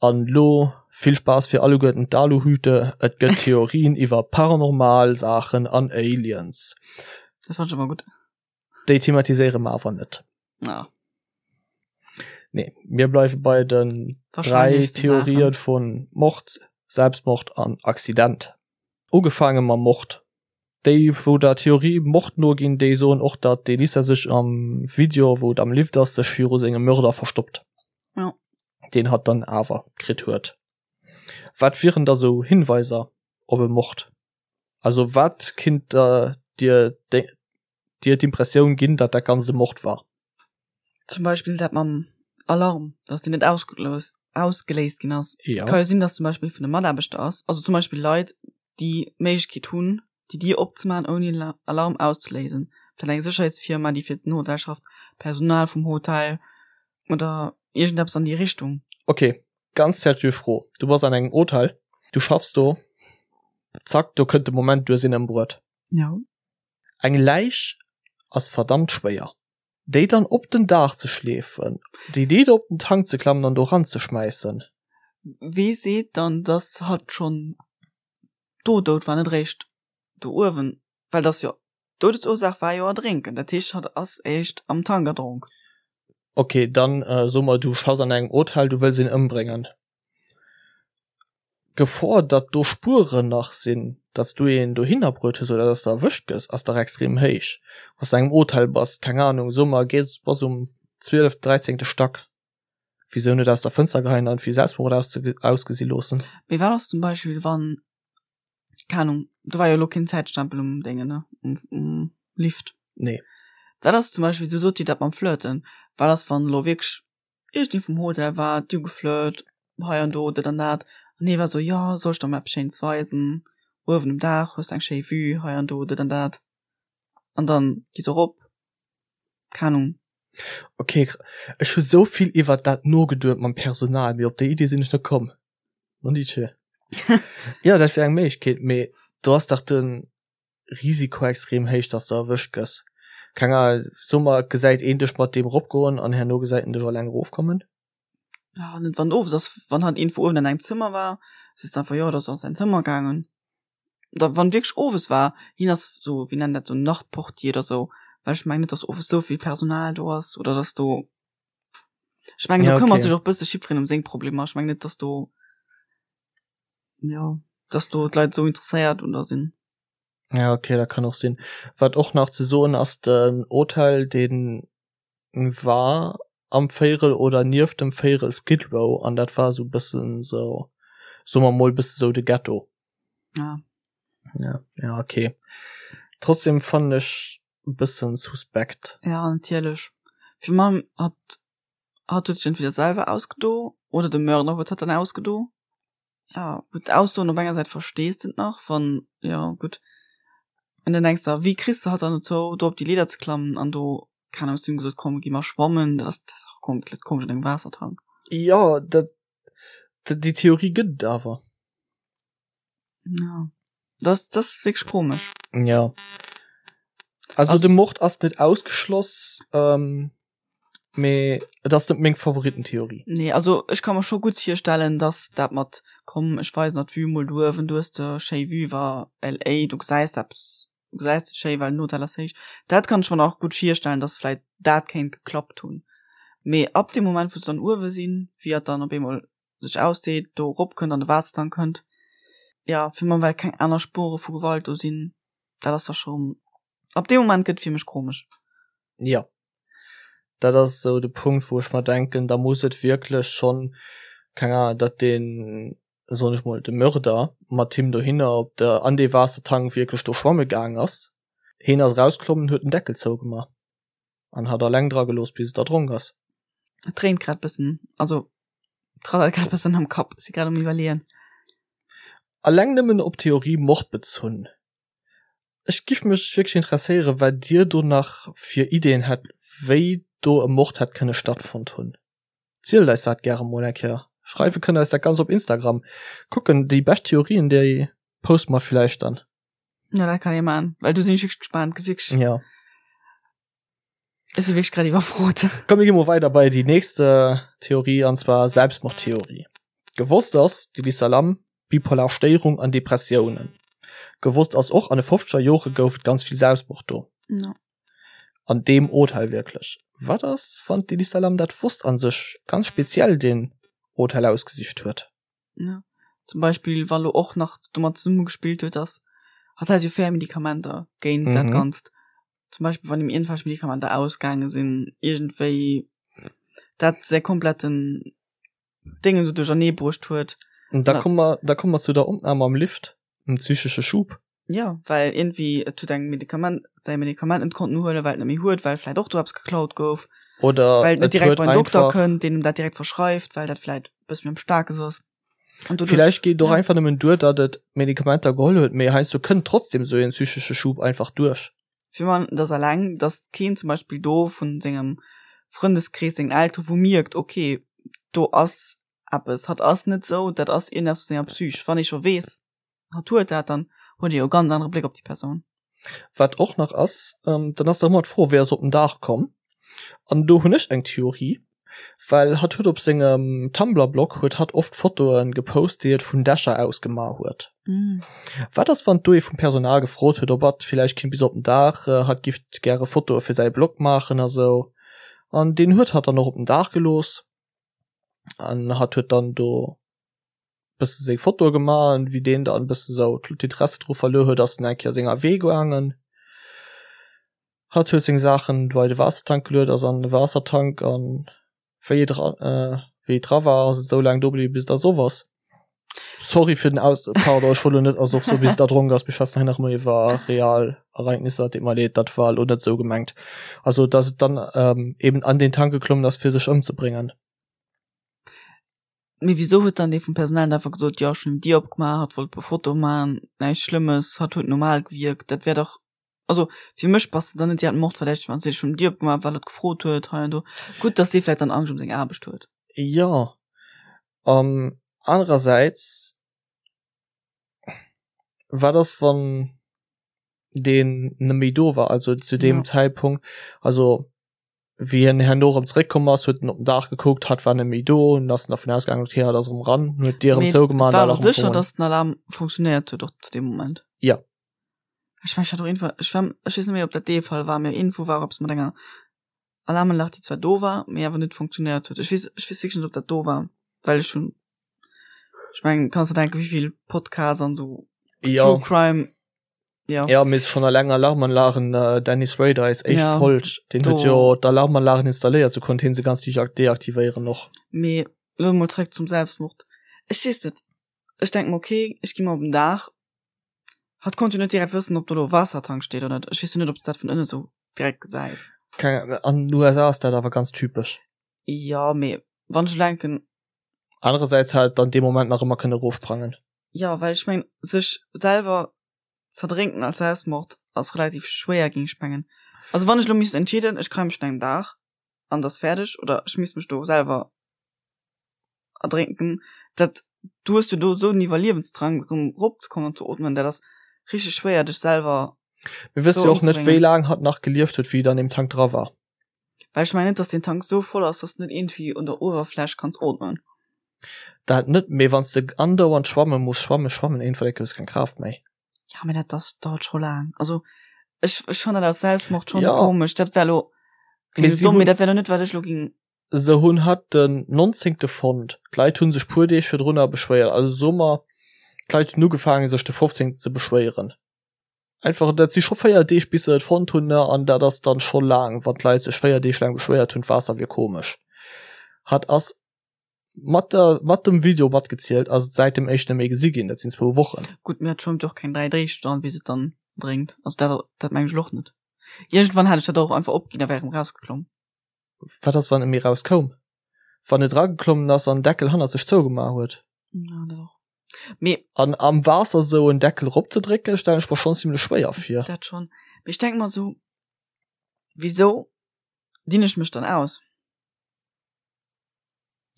[SPEAKER 1] An lo vill Spaass fir alleguerten d'Aluhüte, et gëtt Theorien iwwer paranormal Saachen an Aliens.
[SPEAKER 2] Dat fand ech ëmmer gutt.
[SPEAKER 1] Déi thematiséiere mer awer net.
[SPEAKER 2] Ah.
[SPEAKER 1] Nee, mir bleiwe bei den 3 Theorien vun Mord, Selbstmord an Accident. Ugefaange mam Mord. Déi wou der Theorie Mord noginn, déi soen och datt d'Elisa sech am Video wou et am Lift ass sech viru sengem Mörder verstoppt.
[SPEAKER 2] Ja.
[SPEAKER 1] Deen hatt dann awer kritt huet. Wat wieren da sou Hinweiser op e Mord? Also wat kinnt der dir dir d'Impressioun ginn, datt dat Ganzt e Mord war?
[SPEAKER 2] Zum Beispill dat mam Alarm, datt deen net ausgeléist ginn ass.
[SPEAKER 1] Ja.
[SPEAKER 2] Ka jo sinn, datt zum Beispill vun de Mataarbechter ass, also zum Beispill Leit, déi d'Méiglechkeet hunn, déi Dier opzemaachen, ouni den Alarm auszeléisen. Vläicht eng Sécherheetsfirma, déi fir den Hotel schafft, Personal vum Hotel oder iergendeppes an déi Richtung.
[SPEAKER 1] Ok, ganz seriö Fro, du bass an engem Hotel, du schaffs do, zack, do kënnt de Moment, du hues een ëmbruet.
[SPEAKER 2] Ja.
[SPEAKER 1] Eng Läich ass verdammt schwéier. Déi dann op den Daach ze schleefen, déi Deed op den Tank ze klammen an do ranzeschmäissen.
[SPEAKER 2] Wee seet dann, dass hatt schonn do dout war, net eréischt do uewen? Well dass jo, d'Doudesursaach war jo Erdrénken, dat heescht hatt ass éischt am Tank erdronk.
[SPEAKER 1] Ok, dann so mer du schaffs an engem Hotel, du wëlls een ëmbréngen. D'Gefor, datt do Spueren nach sinn, datt s du een dohinner bruet hues oder datt s de erwëscht gëss, ass dach extrem héich. Wann s de an engem Hotel bass, keng Anung, so mer, gees, bass um zwieleft, dräizéngte Stack, wisou net aus der Fënster geheien an et wéi Selbstmord ausgesi loossen?
[SPEAKER 2] Mee wat ass zum Beispill, wann. Keng Ahnung, do war jo elo keen Zäitstempel um Déngen, ne? Um, um Lift.
[SPEAKER 1] Nee.
[SPEAKER 2] Wat ass zum Beispill, sou sot dir dat mam Flirten, wat ass wann elo wierklech iergendee vum Hotel war, du geflirt, hei an do, dat an dat, an hie war sou, jo, soll ech der mol eppes Schéines weisen, uewen um Daach hues de eng schéi Vue, hei an do, dat an dat, an dann gi se erop, keng Ahnung.
[SPEAKER 1] Ok, ech hu sou vill iwwert dat nogeduet mam Personal, mee op déi Idee sinn ech net komm. Nondiche. Jo, dat wär eng Méiglechkeet, mee do ass dach de Risiko extrem héich, dass de erwëscht gëss. Keng Ahnung, so mer, et gesäit een dech mat deem eropgoen an herno gesäit en dech alleng erofkommen.
[SPEAKER 2] Ja, net wann owes ass, wann hatt iergendwou uewen an engem Zëmmer war, sees de einfach, jo, dat ass an säin Zëmmer gaangen. Oder wann wierklech owes war, hien ass sou, wéi nennen dat, sou Nachtportier oder sou, well ech mengen net, dass owes sou vill Personal do ass oder dass do, ech mengen, do
[SPEAKER 1] Ja,
[SPEAKER 2] këmmert
[SPEAKER 1] okay.
[SPEAKER 2] sech och bësse jiddwereen ëm seng Problemer. Ech mengen net, dass do, jo, dass do d'Leit sou interesséiert un der sinn.
[SPEAKER 1] Ja, okay, dat kann och sinn. Wat och nach ze soen ass, den Hotel, dee war am Véirel oder nieft dem Véirel Skid Row an dat war sou bëssen sou, soe mer mol, bësse sou de Ghetto.
[SPEAKER 2] Ah.
[SPEAKER 1] Ja, ja, okay. Trotzdem fannen ech bëssen suspekt.
[SPEAKER 2] Ja, natierlech. Fir mam hat hat huet sech entweder selwer ausgedo oder de Mörder huet hatt dann ausgedo. Ja, gutt, ausdoen op enger Säit verstees de et nach, wann, ja, gutt. An dann denks de, wéi kriss de hatt dann dozou, do op déi Leeder ze klammen an do, keng Ahnung, zu him gesot, komm, gi mer schwammen, dat ass, dat ass och komplett komesch an engem Waassertank.
[SPEAKER 1] Jo, dat, déi Theorie gëtt et awer.
[SPEAKER 2] Ja, dat, dat ass wierklech komesch.
[SPEAKER 1] Ja. Also, also de Mord ass net ausgeschloss, ähm, mee et ass net meng Favoritentheorie.
[SPEAKER 2] Nee, also ech ka mer scho gutt virstellen, dass dat mat komm ech weisen der d'Vue mol do uewen, du hues de schéi Vue iwwer LA, du gesäis eppes, du gesäis et schéi, well den Hotel ass héich. Dat kann ech mer nach gutt virstellen, dass vläit dat kéint geklappt hunn. Mee ab deem Moment wou se dann uewe sinn, wéi hatt dann op eemol sech ausdeet, do erop kënnt, an de Waassertank kënnt, jo, fir mer well keng aner Spure vu Gewalt do sinn, dat ass da scho, ab deem Moment gëtt et fir mech komesch.
[SPEAKER 1] Jo, dat ass esou de Punkt, wou ech mer denken, da muss et wierklech schonn, keng Ahnung, datt deen, soen ech mol, de Mörder mat him dohinner op de, an dee Waassertank wierklech do schwamme gaang ass. Heen ass erausklommen, huet den Deckel zougemaach an hat alleng dra gelooss, bis et erdronk ass.
[SPEAKER 2] Et dréint grad bëssen, also et rattert grad bëssen am Kapp, si grad um iwwerleeën.
[SPEAKER 1] Alleng nëmmen op d'Theorie Mord bezunn, Ech giff mech wierklech interesséieren wat dir do nach fir Ideen hätt wéi do e Mord hätt kënne stattfonnt hunn. Zielt eis dat gäre mol eng Kéier. Schreiwe kënnt eis dat ganz op Instagram. Kucken déi bescht Theorien déi poste mer villäicht dann.
[SPEAKER 2] Ja dat kann ee man, well do sinn ech wierklech gespaant, gëtt wierklech.
[SPEAKER 1] Ja.
[SPEAKER 2] Ech si wierklech grad iwwerfrot.
[SPEAKER 1] Komm mir gi mol weider bei déi nächst Theorie an zwar Selbstmordtheorie. Gewosst ass, de Lisa Lam, bipolar Stéierung an Depressiounen. Gewosst ass och, an de fofzeger Jore gouf et ganz vill Selbstmord do.
[SPEAKER 2] Ja.
[SPEAKER 1] An deem Hotel wierklech. Wat ass, wann d'Elisa Lam dat wosst a sech ganz speziell deen Hotel ausgesicht huet?
[SPEAKER 2] Ja. Zum Beispill, wa lo och nach domat zesummegespillt huet, dass hatt hat jo fair Medikamenter géint dat Ganzt. Zum Beispill, wann him iergendwelch Medikamenter ausgaange sinn, iergendwéi dat säi kompletten Déngen do duerchernee bruecht huet.
[SPEAKER 1] Und da komme mer, da komme mer zu der Opnam am Lift, dem psychesche Schub.
[SPEAKER 2] Ja, well iergendwéi et huet eng Medikament, säi Medikament net konnten huelen, well et net méi huet, well vläit och do eppes geklaut gouf.
[SPEAKER 1] Oder
[SPEAKER 2] well et net
[SPEAKER 1] et
[SPEAKER 2] direkt
[SPEAKER 1] huet
[SPEAKER 2] beim Dokter
[SPEAKER 1] einfach,
[SPEAKER 2] kënnt, deen em dat direkt verschreift, well dat vläit e bësse méi am Staarkes ass. An doduerch,
[SPEAKER 1] villäicht geet et och
[SPEAKER 2] ja.
[SPEAKER 1] einfach nëmmen duer, datt et Medikamenter geholl huet, mee heiansdo kënnt trotzdem esou een psychesche Schub einfach duerch.
[SPEAKER 2] Fir man, dass alleng, dass keen zum Beispill do vun sengem Frëndeskrees, sengen Elteren, wou mierkt, okay, do ass eppes, hatt ass net sou, dat ass iergendeppes mat senger Psych. Wann ee scho weess, hatt huet dat, dann huet ee jo e ganz anere Bléck op déi Persoun.
[SPEAKER 1] Wat och nach ass, dann ass dach ëmmer d'Fro, wéi ass op den Daach komm? An do hunn ech eng Theorie, well hatt huet op sengem Tumblr-Blog huet hatt oft Fotoe gepost, déi et vun Dächer aus gemaach huet. Wat ass, wann do ee vum Personal gefrot huet, ob hatt villäicht kinnt bis op den Daach, hatt giff gäre Fotoe fir säi Blog maachen a sou. An deen huet hatt dann och op den Daach gelooss an hatt huet dann do bësse seng Fotoe gemaach an wéi deen dann bësse sou d'Interesse dru verluer huet, ass en eng Kéier senger Wee gaangen. Hatt huet seng Saachen bei de Waassertank geluet, ass an de Waassertank an wéi et dra wéi et dra war, ass et esou laang do bliwwen, bis et ersoff ass. Sorry fir den Aus pardon, ech wollt lo net also och sou wéi se erdronk ass, mir schwätzen hei nach ëmmer iwwer real Ereignisser, deet mer leed, dat war lo net sou gemengt. Also dass et dann ähm, eben an den Tank geklommen ass fir sech ëmzebréngen.
[SPEAKER 2] Mee wisou huet dann dee vum Personal net einfach gesot, jo ech hunn d'Dier opgemaach, hatt wollt e puer Fotoe maachen, näischt Schlëmmes, hatt huet normal gewierkt, dat wär dach Also fir mech bass de dann net direkt mordverdächteg, wann s de schonn d'Dier opgemaach well et gefrot huet hei an do. Gutt, datt dee vläit dann Angscht ëm seng Aarbecht huet.
[SPEAKER 1] Jo, an anerersäits, wat ass wann deen net méi do war, also zu deem Zäitpunkt, also wéi hien herno erëm zeréckkomm ass, huet en op den Daach gekuckt, hatt war net méi do, an ass en dervun ausgaangen, okay, hatt ass erëm eran, huet d'Dier erëm zougemaach
[SPEAKER 2] an war awer sécher, datt den Alarm funktionéiert huet och zu deem Moment.
[SPEAKER 1] Jo.
[SPEAKER 2] Ech mengen, ech hat och iergendwann, ech war, ech weess net méi, ob dat dee Fall war, mee iergendwou war eppes mat enger Alarmanlag, déi zwar do war, mee awer net funktionéiert huet. Ech weess, ech weess wierklech net, ob dat do war, well ech hunn, ech mengen, kanns der denken, wéi vill Podcasts an esou
[SPEAKER 1] True
[SPEAKER 2] Crime
[SPEAKER 1] Ja. Ja, mee schon alleng Alarmanlagen, äh, Dennis Rader eis éischt ja, Folg, den huet jo d'Alarmanlagen installéiert, sou konnt hien se ganz liicht deaktivéieren och.
[SPEAKER 2] Mee lo mol zréck zum Selbstmord. Ech weess net, ech denk mer okay, ech gi mol op den Daach. Hatt konnt jo net direkt wëssen, ob do lo e Waassertank steet oder net. Ech weess jo net, ob s dat vun ënne sou direkt gesäis.
[SPEAKER 1] Keng, an den USA ass dat awer ganz typesch.
[SPEAKER 2] Jo, mee wann ech elo denken.
[SPEAKER 1] Anerersäits hätt et dann dee Moment nach ëmmer kënne erofsprangen.
[SPEAKER 2] Jo, well ech mengen, sech selwer z'erdrénken als Selbstmord ass relativ schwéier, géing ech mengen. Also wann ech elo misst entscheeden, ech kréie mech un engem Daach an et ass fäerdeg oder ech misst mech do selwer erdrénken, dat, du hues jo do esou den Iwwerliewensdrang erëm eropzekommen an ze ootmen, dat ass richteg schwéier dech selwer
[SPEAKER 1] Mir wësse jo och net, wéi laang hatt nach gelieft huet, wéi et an deem Tank dra war.
[SPEAKER 2] Well ech mengen net, dass deen Tank esou voll ass, dass de net iergendwéi un der Uewerfläch kanns ootmen.
[SPEAKER 1] Dat net, mee wann s de andauernd schwamme muss, schwamme, schwammen, iergendwann enke hues keng Kraaft méi.
[SPEAKER 2] Ja, mee dat ass, dauert scho laang. Also ech, ech fannen dat als Selbstmord schon ja. komesch. Dat wär lo,
[SPEAKER 1] klingt
[SPEAKER 2] domm, mee dat wär lo net, wat ech lo ging.
[SPEAKER 1] Se hunn hatt den 19. fonnt. D'Leit hu sech puer Deeg virdrunner beschwéiert. Also soe mer, d'Leit hunn ugefaange sech de 15. ze beschwéieren. Einfach, dat si scho 4 Deeg bis se et fonnt hunn, ne, an dat ass dann scho laang, wann d'Leit sech 4 Deeg laang beschwéiert hunn, d'Waasser wier komesch. Hatt ass mat der mat dem Video matgezielt ass et säit dem éischten méi gesi ginn, dat sinn zwou Wochen.
[SPEAKER 2] Gutt, mee et schwëmmt jo och keng 3 Deeg dran, bis et dann drénkt. Also dat dat mengen ech elo och net. Iergendwann hätt ech dat och einfach opginn a wär erëm rausgeklomm.
[SPEAKER 1] Wat ass wann e méi rauskoum? Wann et erageklommen ass an den Deckel hannert sech zougemaach huet?
[SPEAKER 2] Ja, dat och. Mee.
[SPEAKER 1] An am Waasser sou en Deckel eropzedrécken, stellen ech mer schonn zimlech schwéier vir.
[SPEAKER 2] Dat schonn. Mee ech denke mer sou, wisou dinn ech mech dann aus?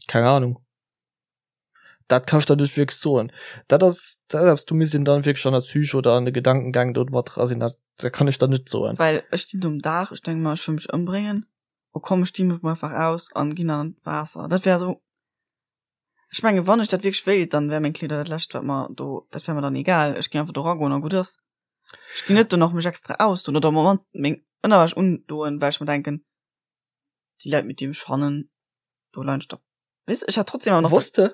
[SPEAKER 1] Keng Ahnung. Dat kann ech der net wierklech soen. Dat ass dat ass eppes, do misst een dann wierklech an der Psyche oder an de Gedankengäng do mat dra sinn. Dat dat kann ech der net soen.
[SPEAKER 2] Well ech stinn do um Daach, ech denke mer, ech wëll mech ëmbréngen. Oh komm, ech di mech mol einfach aus an ginn an d'Waasser. Dat wär esou, ech menge wann ech dat wierklech wéilt, dann wär meng Kleeder dat lescht wat mer do, dat wär mer dann egal. Ech géing einfach do ragoen a gutt ass. Ech ginn net do nach mech extra ausdoen oder op mannst meng Ënnerwäsch undoen, well ech mer denken, déi Leit mit deem ech fannen do leien ech da weess ech hat trotzdem awer
[SPEAKER 1] nach Wosst de,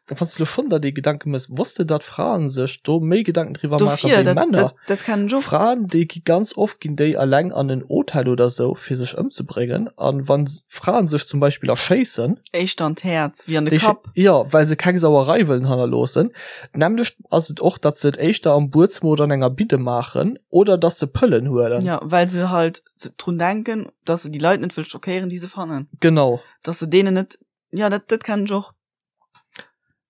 [SPEAKER 1] wann s de lo schonn der déi Gedanke mëss, wosst de datt Fraen sech do méi Gedanken driwwer maache
[SPEAKER 2] dofir
[SPEAKER 1] wéi
[SPEAKER 2] dat
[SPEAKER 1] Männer?
[SPEAKER 2] dat dat kennen ech och.
[SPEAKER 1] Fraen déi gi ganz oft ginn déi alleng an en Hotel oder sou fir sech ëmzebréngen an wann Fraen sech zum Beispill erschéissen,
[SPEAKER 2] Éischter an d'Häerz wéi an de déi Kapp.
[SPEAKER 1] jo well se keng Sauerei wëllen hannerloossen. D'nämmlecht ass et och datt se et éischter am Buedzëmmer oder an enger Bidde maachen oder datt se Pëllen huelen.
[SPEAKER 2] Jo well se halt drun denken, dass se déi Leit net wëll schockéieren, déi se fannen.
[SPEAKER 1] Genau.
[SPEAKER 2] Dass se deenen net, ja, dat, dat kennen ech och.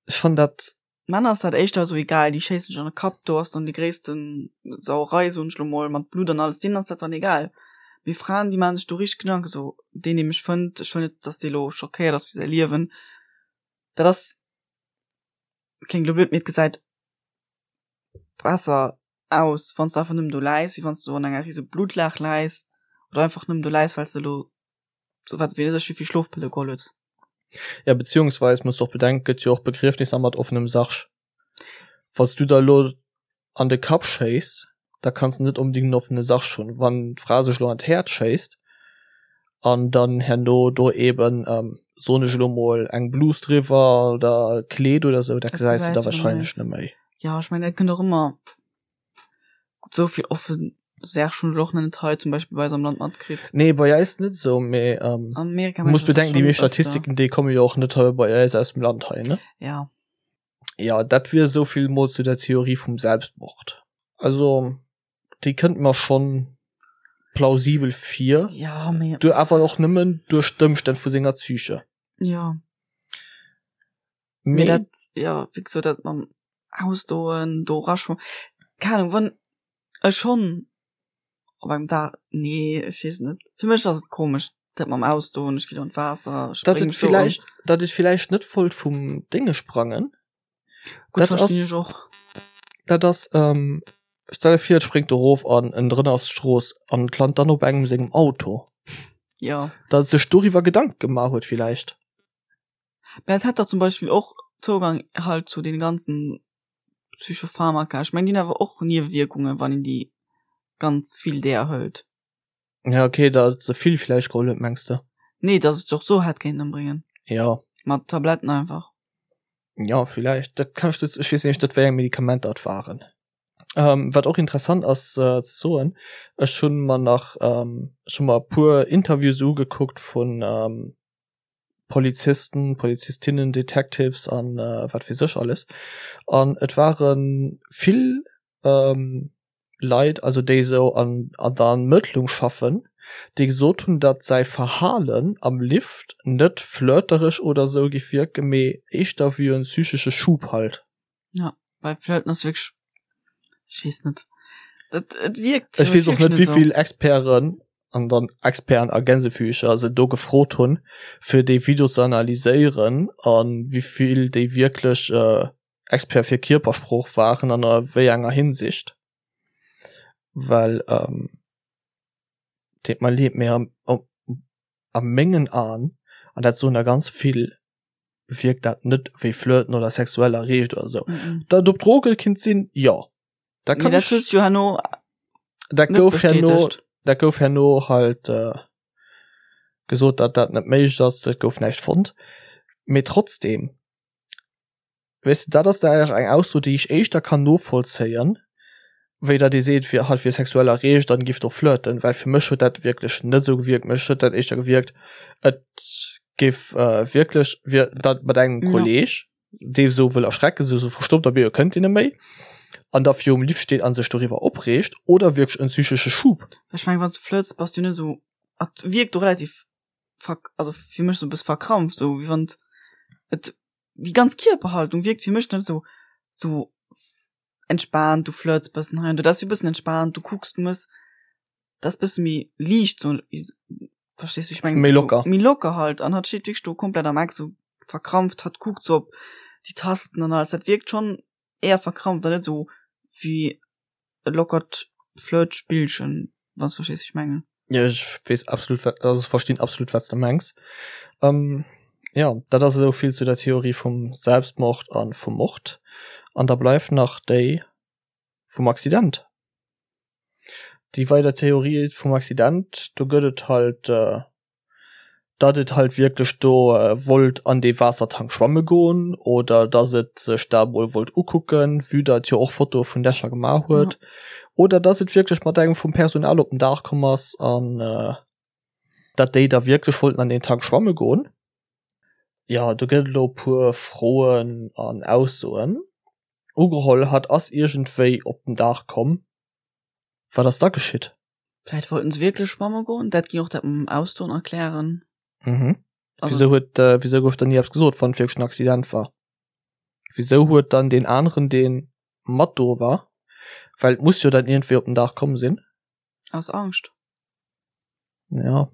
[SPEAKER 1] Ech fannen dat.
[SPEAKER 2] Männer ass dat éischter esou egal, déi schéissen sech an de Kapp, do ass dann déi gréissten Sauerei, soen ech lo mol, mat Blutt an alles, deenen ass dat dann egal. Mee Fraen, déi maachen sech do richteg Gedanken, esou, deen, dee mech fënnt, ech wëll net, dass dee lo schockéiert ass fir säi Liewen. Dat ass, kléngt lo blöd, mee et gesäit besser aus wanns de einfach nëmmen do läis, wéi wanns du an enger rise Blutlaach läis oder einfach nëmmen do läis, wells de elo sou wat weess ech wéivill Schlofpëlle geholl hues.
[SPEAKER 1] Ja, beziehungsweis muss de och bedenken, gëtt jo och Begriefnisser mat offenem Sarg. Wanns du der elo an de Kapp schéiss, da kanns de net onbedingt en offene Sarg hunn. Wann d'Fra sech elo an d'Häerz schéisst an dann herno do eben, soen ech elo mol, eng Blus driwwer oder e Kleed oder sou, dat gesäis de da wahrscheinlech net méi.
[SPEAKER 2] Jo, ech mengen dat kënnt och ëmmer gutt, esou vill offen Särg hunn ech och nach net hei zum Beispill bei eis am Land matkritt.
[SPEAKER 1] Nee, bei eis net esou, mee
[SPEAKER 2] ähm, Amerika
[SPEAKER 1] muss bedenken, déi meescht Statistiken déi komme jo och net hei bei eis aus dem Land hei, ne?
[SPEAKER 2] Ja.
[SPEAKER 1] Ja, dat wier esou vill mol zu der Theorie vum Selbstmord. Also déi kënnt mer schonn plausibel vir.
[SPEAKER 2] Ja, mee.
[SPEAKER 1] Du awer och nëmmen duerch d'Ëmstänn vu senger Psyche.
[SPEAKER 2] Ja. Mee dat, ja, wéi gesot, dat mam Ausdoen, do eraschwammen, keng Ahnung, wann ech schonn op engem Dag, nee, ech weess net, fir mech ass et komesch, dat mam Ausdoen, ech ginn an d'Waasser,
[SPEAKER 1] ech spréng sou an. Datt et villäicht net wollt vum Dénge sprangen,
[SPEAKER 2] Gutt, verstinn ech och.
[SPEAKER 1] Dat ass, stell der vir, et spréngt erof an ënnendrënner ass d'Strooss an et lant dann op engem sengem Auto.
[SPEAKER 2] Jo.
[SPEAKER 1] Datt et sech doriwwer Gedanke gemaach huet villäicht.
[SPEAKER 2] Mä et hätt der zum Beispill och Zougang halt zu den ganzen Psychopharmaka. Ech mengen déi hunn awer och Niewewierkungen, wann een déi ganz vill där hëlt.
[SPEAKER 1] Ja okay, datt se vill vläicht geholl huet mengs de?
[SPEAKER 2] Nee, datt et och sou hätt kéinten ëmbréngen.
[SPEAKER 1] Jo.
[SPEAKER 2] Mat Tabletten einfach.
[SPEAKER 1] Jo, villäicht. Dat kann ech net, ech weess nämlech net wéi eng Medikamenter et waren. Ähm, wat och interessant ass äh, ze soen, ech hunn mer nach ähm, ech hunn mer e puer Interviews ugekuckt vun ähm, Polizisten, Polizistinnen, Detectives an wat weess ech alles. An et ware vill Leit, also déi esou an an der Ermëttlung schaffen, déi gesot hunn, datt säi Verhalen am Lift net flirtereg oder esou géif wierken, mee éischter wéi en psychesche Schub halt.
[SPEAKER 2] Ja, bei Flirten ass wierklech, ech weess net, dat et
[SPEAKER 1] wierkt Ech weess och net, wéi vill Experten, an dann Experten a Gänsefüßcher, se do gefrot hunn, fir dee Video ze analyséieren a wéi vill déi wierklech Experte fir Kierpersprooch waren an a wéi enger Hinsicht. Well, deet mer leed, mee a mengen Aen, an dat soen der ganz vill, wierkt dat net wéi Flirten oder sexuell erreegt oder sou. Datt et op Droge kinnt sinn, jo.
[SPEAKER 2] Dat kann ech. Dat jo herno
[SPEAKER 1] dat gouf herno, dat gouf herno halt gesot, datt dat net méiglech ass, et gouf näischt fonnt. Mee trotzdem. Weess de, dat ass da eng Ausso, déi ech éischter kann novollzéien, wéi datt ee seet, fir hatt wier sexuell erreegt an giff do flirten, well fir mech huet dat wierklech net esou gewierkt. Mech huet dat éischter gewierkt, et géif wierklech wier dat mat engem ja. Kolleg, dee sou wëll erschrecken, sou sou verstoppt a bie kënnt een net méi, an da virum Lift steet an sech doriwwer opreegt, oder wierklech en psychesche Schub.
[SPEAKER 2] Ech meng, wann s du flirts, bass du net esou, et wierkt do relativ verk-, also fir mech sou e bësse verkrampft, sou wéi wann et déi ganz Kierperhaltung wierkt fir mech net sou sou entspaant, du flirts bëssen hei an do, dat ass sou bëssen entspaant, du kucks, du mëss, dat ass bësse méi liicht sou, verstees du, wéi ech mengen?
[SPEAKER 1] Méi locker.
[SPEAKER 2] Méi locker halt an hatt steet wierklech do komplett am Eck sou verkrampft, hatt kuckt sou op déi Tasten an alles, dat wierkt schonn éier verkrampft an net sou wéi e lockert Flirtspillchen, wann s de verstees, wéi ech mengen.
[SPEAKER 1] Jo, ech weess absolut, wat, also ech verstinn absolut, wat s de mengs. Ähm, jo, dat ass esou vill zu der Theorie vum Selbstmord a vum Mord. An da bleift nach déi vum Accident. Déi weider Theorie vum Accident, do gëtt et halt, datt et halt wierklech do wollt an dee Waassertank schwamme goen oder datt et sech dat emol wollt ukucken, vue datt et jo och Fotoe vun Dächer gemaach huet, oder datt et wierklech mat engem vum Personal op den Daach komm ass an datt déi da wierklech wollten an deen Tank schwamme goen. Jo, do gëtt et elo e puer Froen an Aussoen. Ugeholl, hatt ass iergendwéi op den Daach komm. Wat ass da geschitt?
[SPEAKER 2] Vläit wollten se wierklech schwamme goen, dat géing och dat mam Ausdoen erklären.
[SPEAKER 1] Mhm. Also, Wieso huet, äh, wieso gouf dann ni eppes gesot, wann et wierklech en Accident war? Wieso huet dann deen aneren, deen mat do war, well et muss jo dann iergendwéi op den Daach komm sinn.
[SPEAKER 2] Aus Angscht.
[SPEAKER 1] Ja.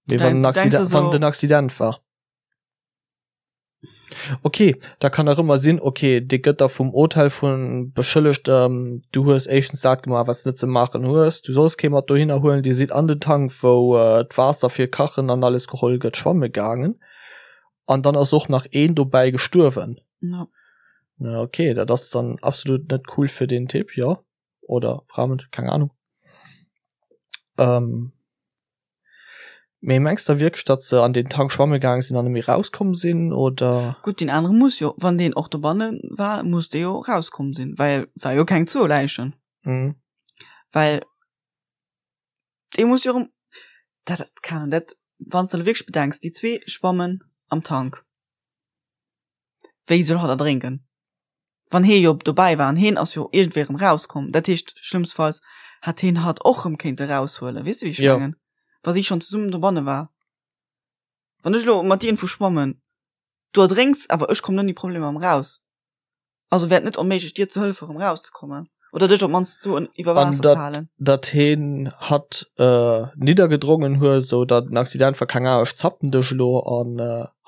[SPEAKER 1] Mee wann en Accident, wann et en Accident war. Ok, da kann nach ëmmer sinn, ok, dee gëtt da vum Hotel vu beschëllegt, du hues éischtens dat gemaach, wat s de net ze maachen hues, du solls kee mat dohinner huelen, dir sidd an den Tank, wou d'Waasser fir kachen an alles geholl gëtt, schwamme gaangen an dann ass och nach een dobäi gestuerwen.
[SPEAKER 2] Ja.
[SPEAKER 1] Na ok, dat ass dann absolut net cool fir deen Typ, jo, oder Fra, Mënsch, keng Ahnung. Ähm. Mee mengs de wierklech datt se an den Tank schwamme gaang sinn an net méi rauskomm sinn oder?
[SPEAKER 2] Gutt deen anere muss jo, wann deen och dobanne war, muss dee jo rauskomm sinn, well war jo keng zwou Läichen.
[SPEAKER 1] Mhm.
[SPEAKER 2] Well dee muss jo erëm, dat dat keng Ahnung, dat wann s de elo wierklech bedenks, déi zwee schwammen am Tank, wéi soll hatt erdrénken? Wann hee jo dobäi war an heen ass jo iergendwéi erëm rauskomm, dat heescht schlëmmstfalls hätt heen hatt och erëm kéinte raushuelen, weess de wéi ech
[SPEAKER 1] Jo.
[SPEAKER 2] mengen? Wa si schonn zesummen dobanne war. Wann ech elo mat dir iergendwou schwammen, du erdrénks, awer ech kommen ouni Problemer erëm raus. Also wär et net onméiglech dir ze hëllefen erëm rauszekommen oder dech op d'mannst sou iwwer
[SPEAKER 1] An
[SPEAKER 2] Waasser
[SPEAKER 1] dat
[SPEAKER 2] ze halen.
[SPEAKER 1] dat heen hatt niddergedrongen huet, sou datt en Accident war, keng Ahnung, ech zappen dech elo an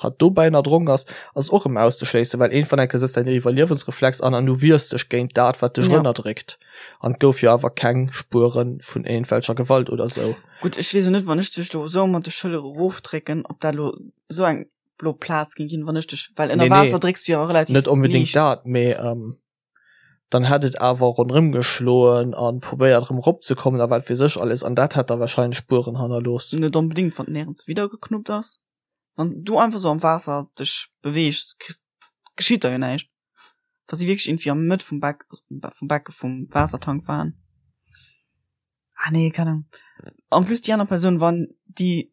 [SPEAKER 1] hatt dobäi erdronk ass, ass och erëm auszeschléissen, well iergendwann eng Kéier sëtzt däin Iwwerliewensreflex an an du wiers dech géint dat wat dech
[SPEAKER 2] Ja.
[SPEAKER 1] ënnerdréckt. An et gouf jo awer keng Spuere vun iergendwelcher Gewalt oder sou.
[SPEAKER 2] Gutt, ech weess och net, wann ech dech elo sou mat de Schëllere erofdrécken, ob dat elo sou eng blo Plaz ging ginn, wann ech dech, well ënner
[SPEAKER 1] Nee, nee.
[SPEAKER 2] Waasser drécks du jo relativ
[SPEAKER 1] Net onbedéngt
[SPEAKER 2] liicht.
[SPEAKER 1] dat, mee ähm, dann hätt et awer ronderëm geschloen an probéiert erëm eropzekommen a wat weess ech alles an dat hätt da wahrscheinlech Spueren hannerlooss.
[SPEAKER 2] Net onbedéngt, wann nirgends widder geknuppt ass. Wann du einfach sou am Waasser dech beweegs, kriss, geschitt der jo näischt. Wa si wierklech irgendwie am Mëtt vum Beck, vum Becke vum Waassertank waren. Ah nee, keine Ahnung. En plus déi aner Persoun, wann déi,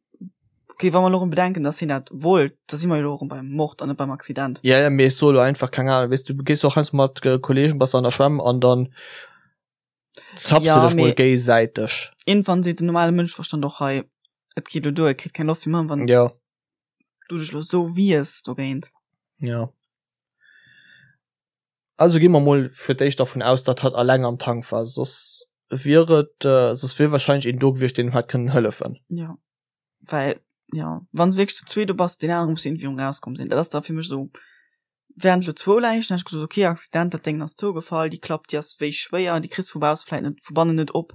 [SPEAKER 2] okay, wa mer elo erëm bedenken, dass hien dat wollt, da si mer jo elo erëm beim Mord an net beim Accident.
[SPEAKER 1] Ja, ja, mee ech soe lo einfach, keng Ahnung, weess du, gees och heiansdo mat Kollegen, bass an der Schwämm an dann zapps
[SPEAKER 2] Ja,
[SPEAKER 1] du dech mol
[SPEAKER 2] mee
[SPEAKER 1] géisäiteg.
[SPEAKER 2] iergendwann seet den normale Mënscheverstand och hei, et geet elo duer, et kritt keng Loft méi, wann
[SPEAKER 1] Ja.
[SPEAKER 2] du dech elo sou wiers dogéint.
[SPEAKER 1] Ja. Also gi mer mol fir d'éischt dervun aus, datt hatt alleng am Tank war, soss wier et, soss wier wahrscheinlech een do gewiescht, deen em hätt kënnen hëllefen.
[SPEAKER 2] Jo, well, jo, wann s de wierklech zu zweet do bass, deen anere muss jo iergendwéi erëm rauskomm sinn. Dat ass da fir mech esou, während elo zwou Läichen, hätt ech gesot, okay, Accident, dat Déngen ass zougefall, déi Klapp, déi ass wéi schwéier, déi kriss de vu bausse vläit net, vu bannen net op,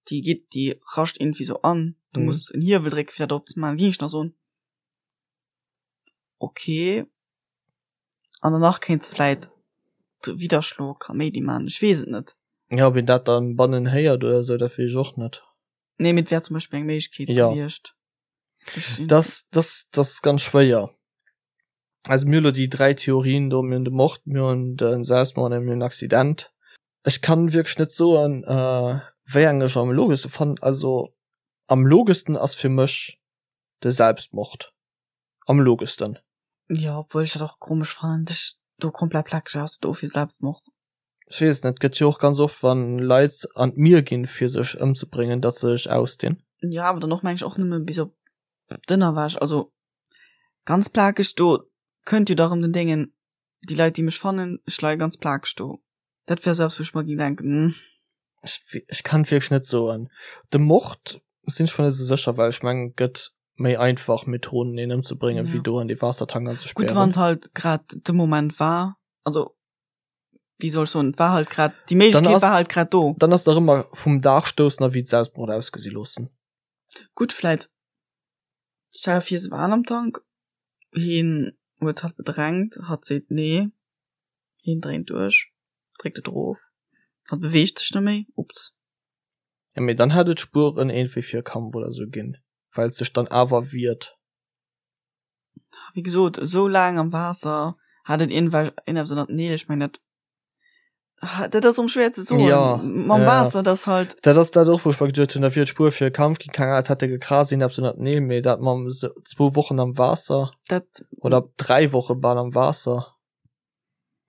[SPEAKER 2] déi geet, déi rascht iergendwéi esou an, du muss en Hiewel drécken, fir dat opzemaachen, géing ech nach soen, okay. An danach kéints de vläit de Widderschlo Kaméidi man, ech weess et net.
[SPEAKER 1] Ja, ob een dat dann bannen héiert oder sou, dat weess ech och net.
[SPEAKER 2] Nee, mee et wär zum Beispill eng Méiglechkeet
[SPEAKER 1] Ja.
[SPEAKER 2] gewiescht.
[SPEAKER 1] Das, das, das ass ganz schwéier. Also mir hu lo déi 3 Theorien do, mir hunn de Mord, mir hunn de Selbstmord a mir hunn den Accident. Ech kann wierklech net soen, wéi eng ech am logeschste fannen. Also am logeschsten ass fir mech de Selbstmord. Am logeschsten.
[SPEAKER 2] Jo, obwuel ech dat och komesch fannen, dech do komplett plakeg auszedoen fir Selbstmord.
[SPEAKER 1] Ech weess net, gëtt jo och ganz oft wann Leit an d'Mier ginn fir sech ëmzebréngen, datt se sech ausdinn.
[SPEAKER 2] Jo, awer dann och meng ech och nëmme bis op d'Ënnerwäsch, also ganz plakeg do kënnt jo da rëm den Déngen, déi Leit déi mech fannen, ech leie ganz plakeg do. Dat wär sou eppes wou ech mer géing denken, hm.
[SPEAKER 1] Ech, ech kann et wierklech net soen. De Mord sinn ech mer net esou sécher, well ech mengen et gëtt méi einfach Methoden een ëmzebréngen wéi
[SPEAKER 2] Ja.
[SPEAKER 1] do an dee Waassertank
[SPEAKER 2] Gutt,
[SPEAKER 1] anzespären.
[SPEAKER 2] wann et halt grad de Moment war, also wéi soll ech soen, et war halt grad, déi
[SPEAKER 1] Dann
[SPEAKER 2] Méiglechkeet
[SPEAKER 1] ass,
[SPEAKER 2] war halt grad do.
[SPEAKER 1] dann ass et nach ëmmer vum Daach stoussen a wéi et Selbstmord ausgesi loossen.
[SPEAKER 2] Gutt, vläit, stell der vir se waren am Tank, heen huet hatt bedrängt, hatt seet nee, heen dréint duerch, dréckt et erof, hatt beweegt sech net méi, ups.
[SPEAKER 1] Ja, mee dann hätt et Spueren iergendwéi fir e Kampf oder sou ginn, well et sech dann awer wiert.
[SPEAKER 2] Wéi gesot, esou laang am Waasser hat et iergendwelch iergendeppes ënnert den Neel, ech mengen dat, dat ass erëm schwéier ze soen,
[SPEAKER 1] Ja,
[SPEAKER 2] mam
[SPEAKER 1] ja.
[SPEAKER 2] Waasser, dat ass halt.
[SPEAKER 1] Dat ass dat och, wou ech mer geduet hunn, da wier et Spuer fir e Kampf ginn, keng Ahnung, et hätt e gekrazt, iergendeppes ënnert den Neel, mee dat mam zwou Wochen am Waasser
[SPEAKER 2] Dat.
[SPEAKER 1] oder 3 Woche bal am Waasser.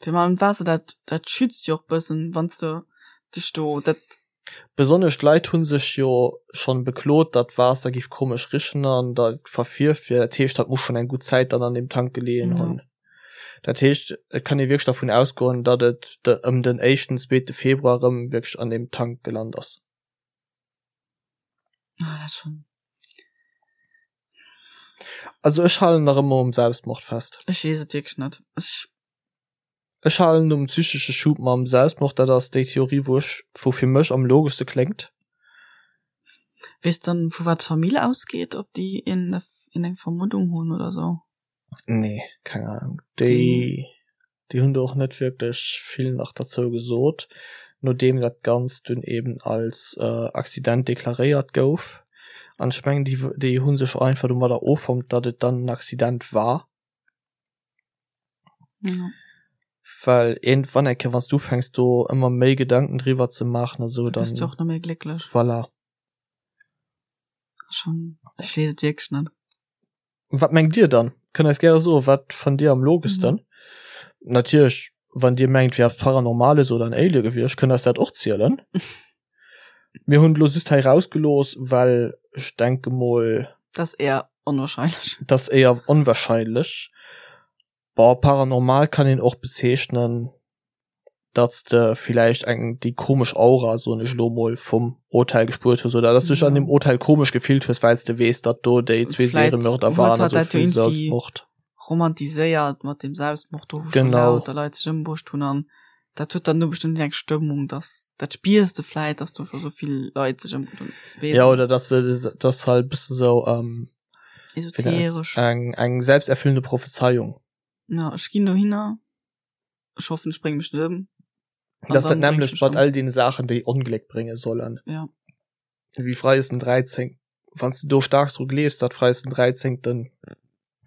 [SPEAKER 2] Fir mam Waasser, dat, dat schützt jo och bëssen, wann s de dech do, dat.
[SPEAKER 1] Besonnesch d'Leit hu sech jo schonn beklot, datt d'Waasser giff komesch richen an dat verfierft wier. Dat heescht, dat muss schonn eng gutt Zäit dann an deem Tank geleeën hunn. Dat heescht, et kann ee wierklech dervun ausgoen, datt et ëm den éischten, zweete Februar erëm wierklech an deem Tank gelant ass.
[SPEAKER 2] Ah, dat schon.
[SPEAKER 1] Also ech halen nach ëmmer um Selbstmord fest.
[SPEAKER 2] Ech weess et wierklech net. Ech.
[SPEAKER 1] Ech halen um psychesche Schub mam Selbstmord, dat ass déi Theorie wou ech, wou fir mech am logeschste kléngt.
[SPEAKER 2] Weess dann vu wat d'Famill ausgeet, ob déi een eng Vermuddung hunn oder sou?
[SPEAKER 1] Nee, keng Ahnung. Déi, déi hunn do och net wierklech vill nach derzou gesot, nodeem dat Ganzt dunn eben als Accident deklaréiert gouf. An ech mengen, déi, déi hu sech och einfach domadder offonnt, datt et dann en Accident war.
[SPEAKER 2] Ja.
[SPEAKER 1] Well iergendwann eng Kéier, wann s du ufänks do ëmmer méi Gedanken driwwer ze maachen a sou,
[SPEAKER 2] Da
[SPEAKER 1] dann.
[SPEAKER 2] bist du och net méi glécklech.
[SPEAKER 1] Voilà.
[SPEAKER 2] Schon, ech weess et wierklech net.
[SPEAKER 1] Wat mengt Dir dann? Kënnt eis gäre soen, wat fannt Dir am logeschsten? Natierlech, Wann Dir mengt, wier eppes Paranormales oder en Alien gewiescht, kënnt eis dat och zielen. Mir hunn et elo just hei rausgelooss, well ech denke mol.
[SPEAKER 2] Dat ass éier onwahrscheinlech.
[SPEAKER 1] Dat ass éier onwahrscheinlech. Bon, paranormal kann een och bezeechnen, datt s de villäicht eng déi komesch Aura, soen ech elo mol, vum Hotel gespuert hues oder datt s du dech an deem Hotel komesch gefillt hues, well s de weess, datt do déi zwee Seriemörder waren a sou vill
[SPEAKER 2] Selbstmord. Romantiséiert mat deem Selbstmord do, wou schon lauter Leit sech ëmbruecht hunn an dat huet dann do bestëmmt eng Stëmmung, datt dat spiers de vläit, datt do scho sou vill Leit sech ëmbruecht hunn.
[SPEAKER 1] Jo, oder datt se, datt halt e bësse sou
[SPEAKER 2] esoteresch.
[SPEAKER 1] Eng eng selbsterfüllende Prophezeiung.
[SPEAKER 2] Ja, ech ginn dohinner, ech hoffen, ech brénge mech net ëm.
[SPEAKER 1] Dat ass dat nämmlecht mat all deene Saachen, déi Ongléck brénge sollen.
[SPEAKER 2] Ja.
[SPEAKER 1] Wéi Freides den 13. Wann s de do staark dru gleefs, datt Freides den 13.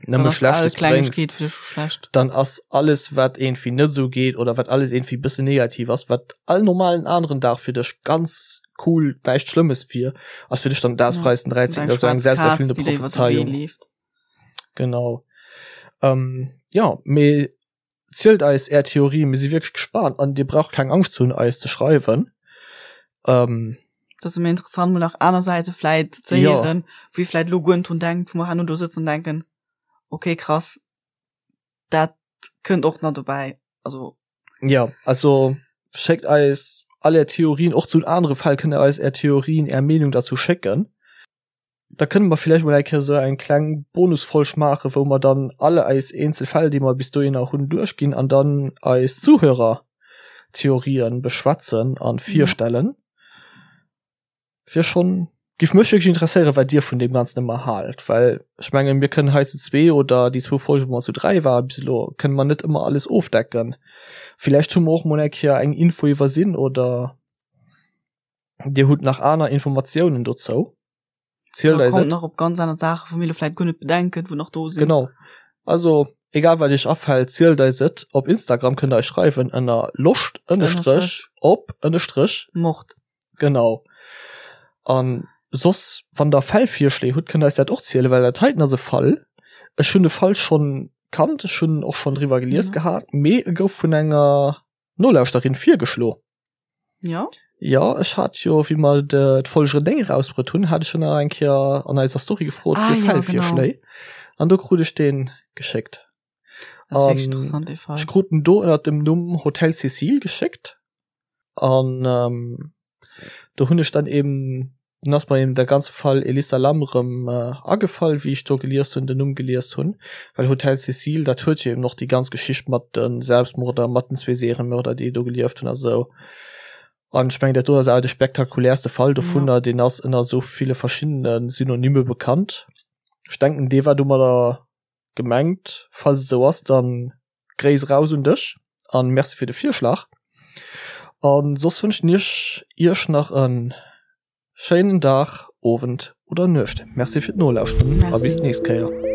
[SPEAKER 1] nëmme Schlechtes bréngt, dann ass alles, wat iergendwéi net esou geet oder wat alles iergendwéi e bëssen negativ ass, wat all normalen aneren Dag fir dech ganz cool, näischt Schlëmmes wier, ass fir dech dann dat Freides den 13. Dat ass esou eng selbsterfüllende Prophezeiung. Genau. Jo, mee Zielt eis är Theorie, mir si wierklech gespaant an dir braucht keng Angscht ze hunn eis ze schreiwen.
[SPEAKER 2] Ähm, Dat ass ëmmer interessant mol nach aner Säite vläit ze Ja. héieren, wou ee vläit elo guer net drun denkt, wou mer herno do sëtzen an denken, okay krass, dat kënnt och nach dobäi. Also
[SPEAKER 1] Ja, also schéckt eis all är Theorien, och zu anere Fäll kënnt der eis är Theorien, är Meenung derzou schécken. Da kënne mer villäicht mol eng Kéier esou eng kleng Bonusfolg maachen, wou mer dann all eis eenzel Fäll, déi mer bis dohinner hunn, duerchginn an dann eis Zuhörertheorien beschwätzen an virstellen. Wier schonn, giff mech wierklech interesséieren, wat dir vun deem Ganzen ëmmer haalt, well ech mengen, mir kënnen hei zu zwee oder déi zwou Folgen, wou mer zu dräi ware bis elo, kënne mer net ëmmer alles ofdecken. Villäicht hu mer och mol eng Kéier eng Info iwwersinn oder. Dir hutt nach aner Informatiounen dozou?
[SPEAKER 2] Zielt eis et. Kommt nach op ganz aner Saachen, wou mir elo vläit guer net bedenken, wou nach do
[SPEAKER 1] sinn. Genau. Also, egal wat iech afält, zielt eis et. Op Instagram kënnt der eis schreiwen ënner loscht ënnestrech op ënnestrech
[SPEAKER 2] Mord.
[SPEAKER 1] Genau. An soss, wann der Fällvirschléi hutt, kënnt der eis dat och zielen, well dat heiten ass e Fall, ech hunn de Fall schonn kannt, ech hunn och schonn driwwer gelies gehat, mee e gouf vun enger Nolauschterin virgeschlo.
[SPEAKER 2] Ja.
[SPEAKER 1] Ja, ech hat jo, wéi mer d'Folg 9 erausbruet hunn, hat ech jo nach eng Kéier an eiser Story gefrot ah, fir ja, Fällvirschléi. Genau. An do krut ech deen geschéckt.
[SPEAKER 2] Das ist interessant, dee
[SPEAKER 1] Fall. Ech krut en do ënner dem Numm Hotel Cécile geschéckt. An ähm, do hunn ech dann eben Dunn ass mer eben der ganze Fall Elisa Lam erëm agefall, wéi ech do gelies hunn, den Numm gelies hunn, well Hotel Cecile, dat huet jo eben och déi ganz Geschicht mat de Selbstmorder, mat den zwee Seriemörder, déi do gelieft hunn a sou. An ech mengen, dat do ass awer de spektakuläerste Fall dovunner, deen ass ënner esou ville verschiddene Synonyme bekannt. Ech denken, dee war domadder gemengt. Falls et esou ass, dann Gréiss eraus un dech an Merci fir de Virschlag. An soss wënschen ech iech nach en schéinen Dag, Owend oder Nuecht. Merci fir d'Nolauschteren a bis d'nächst Kéier.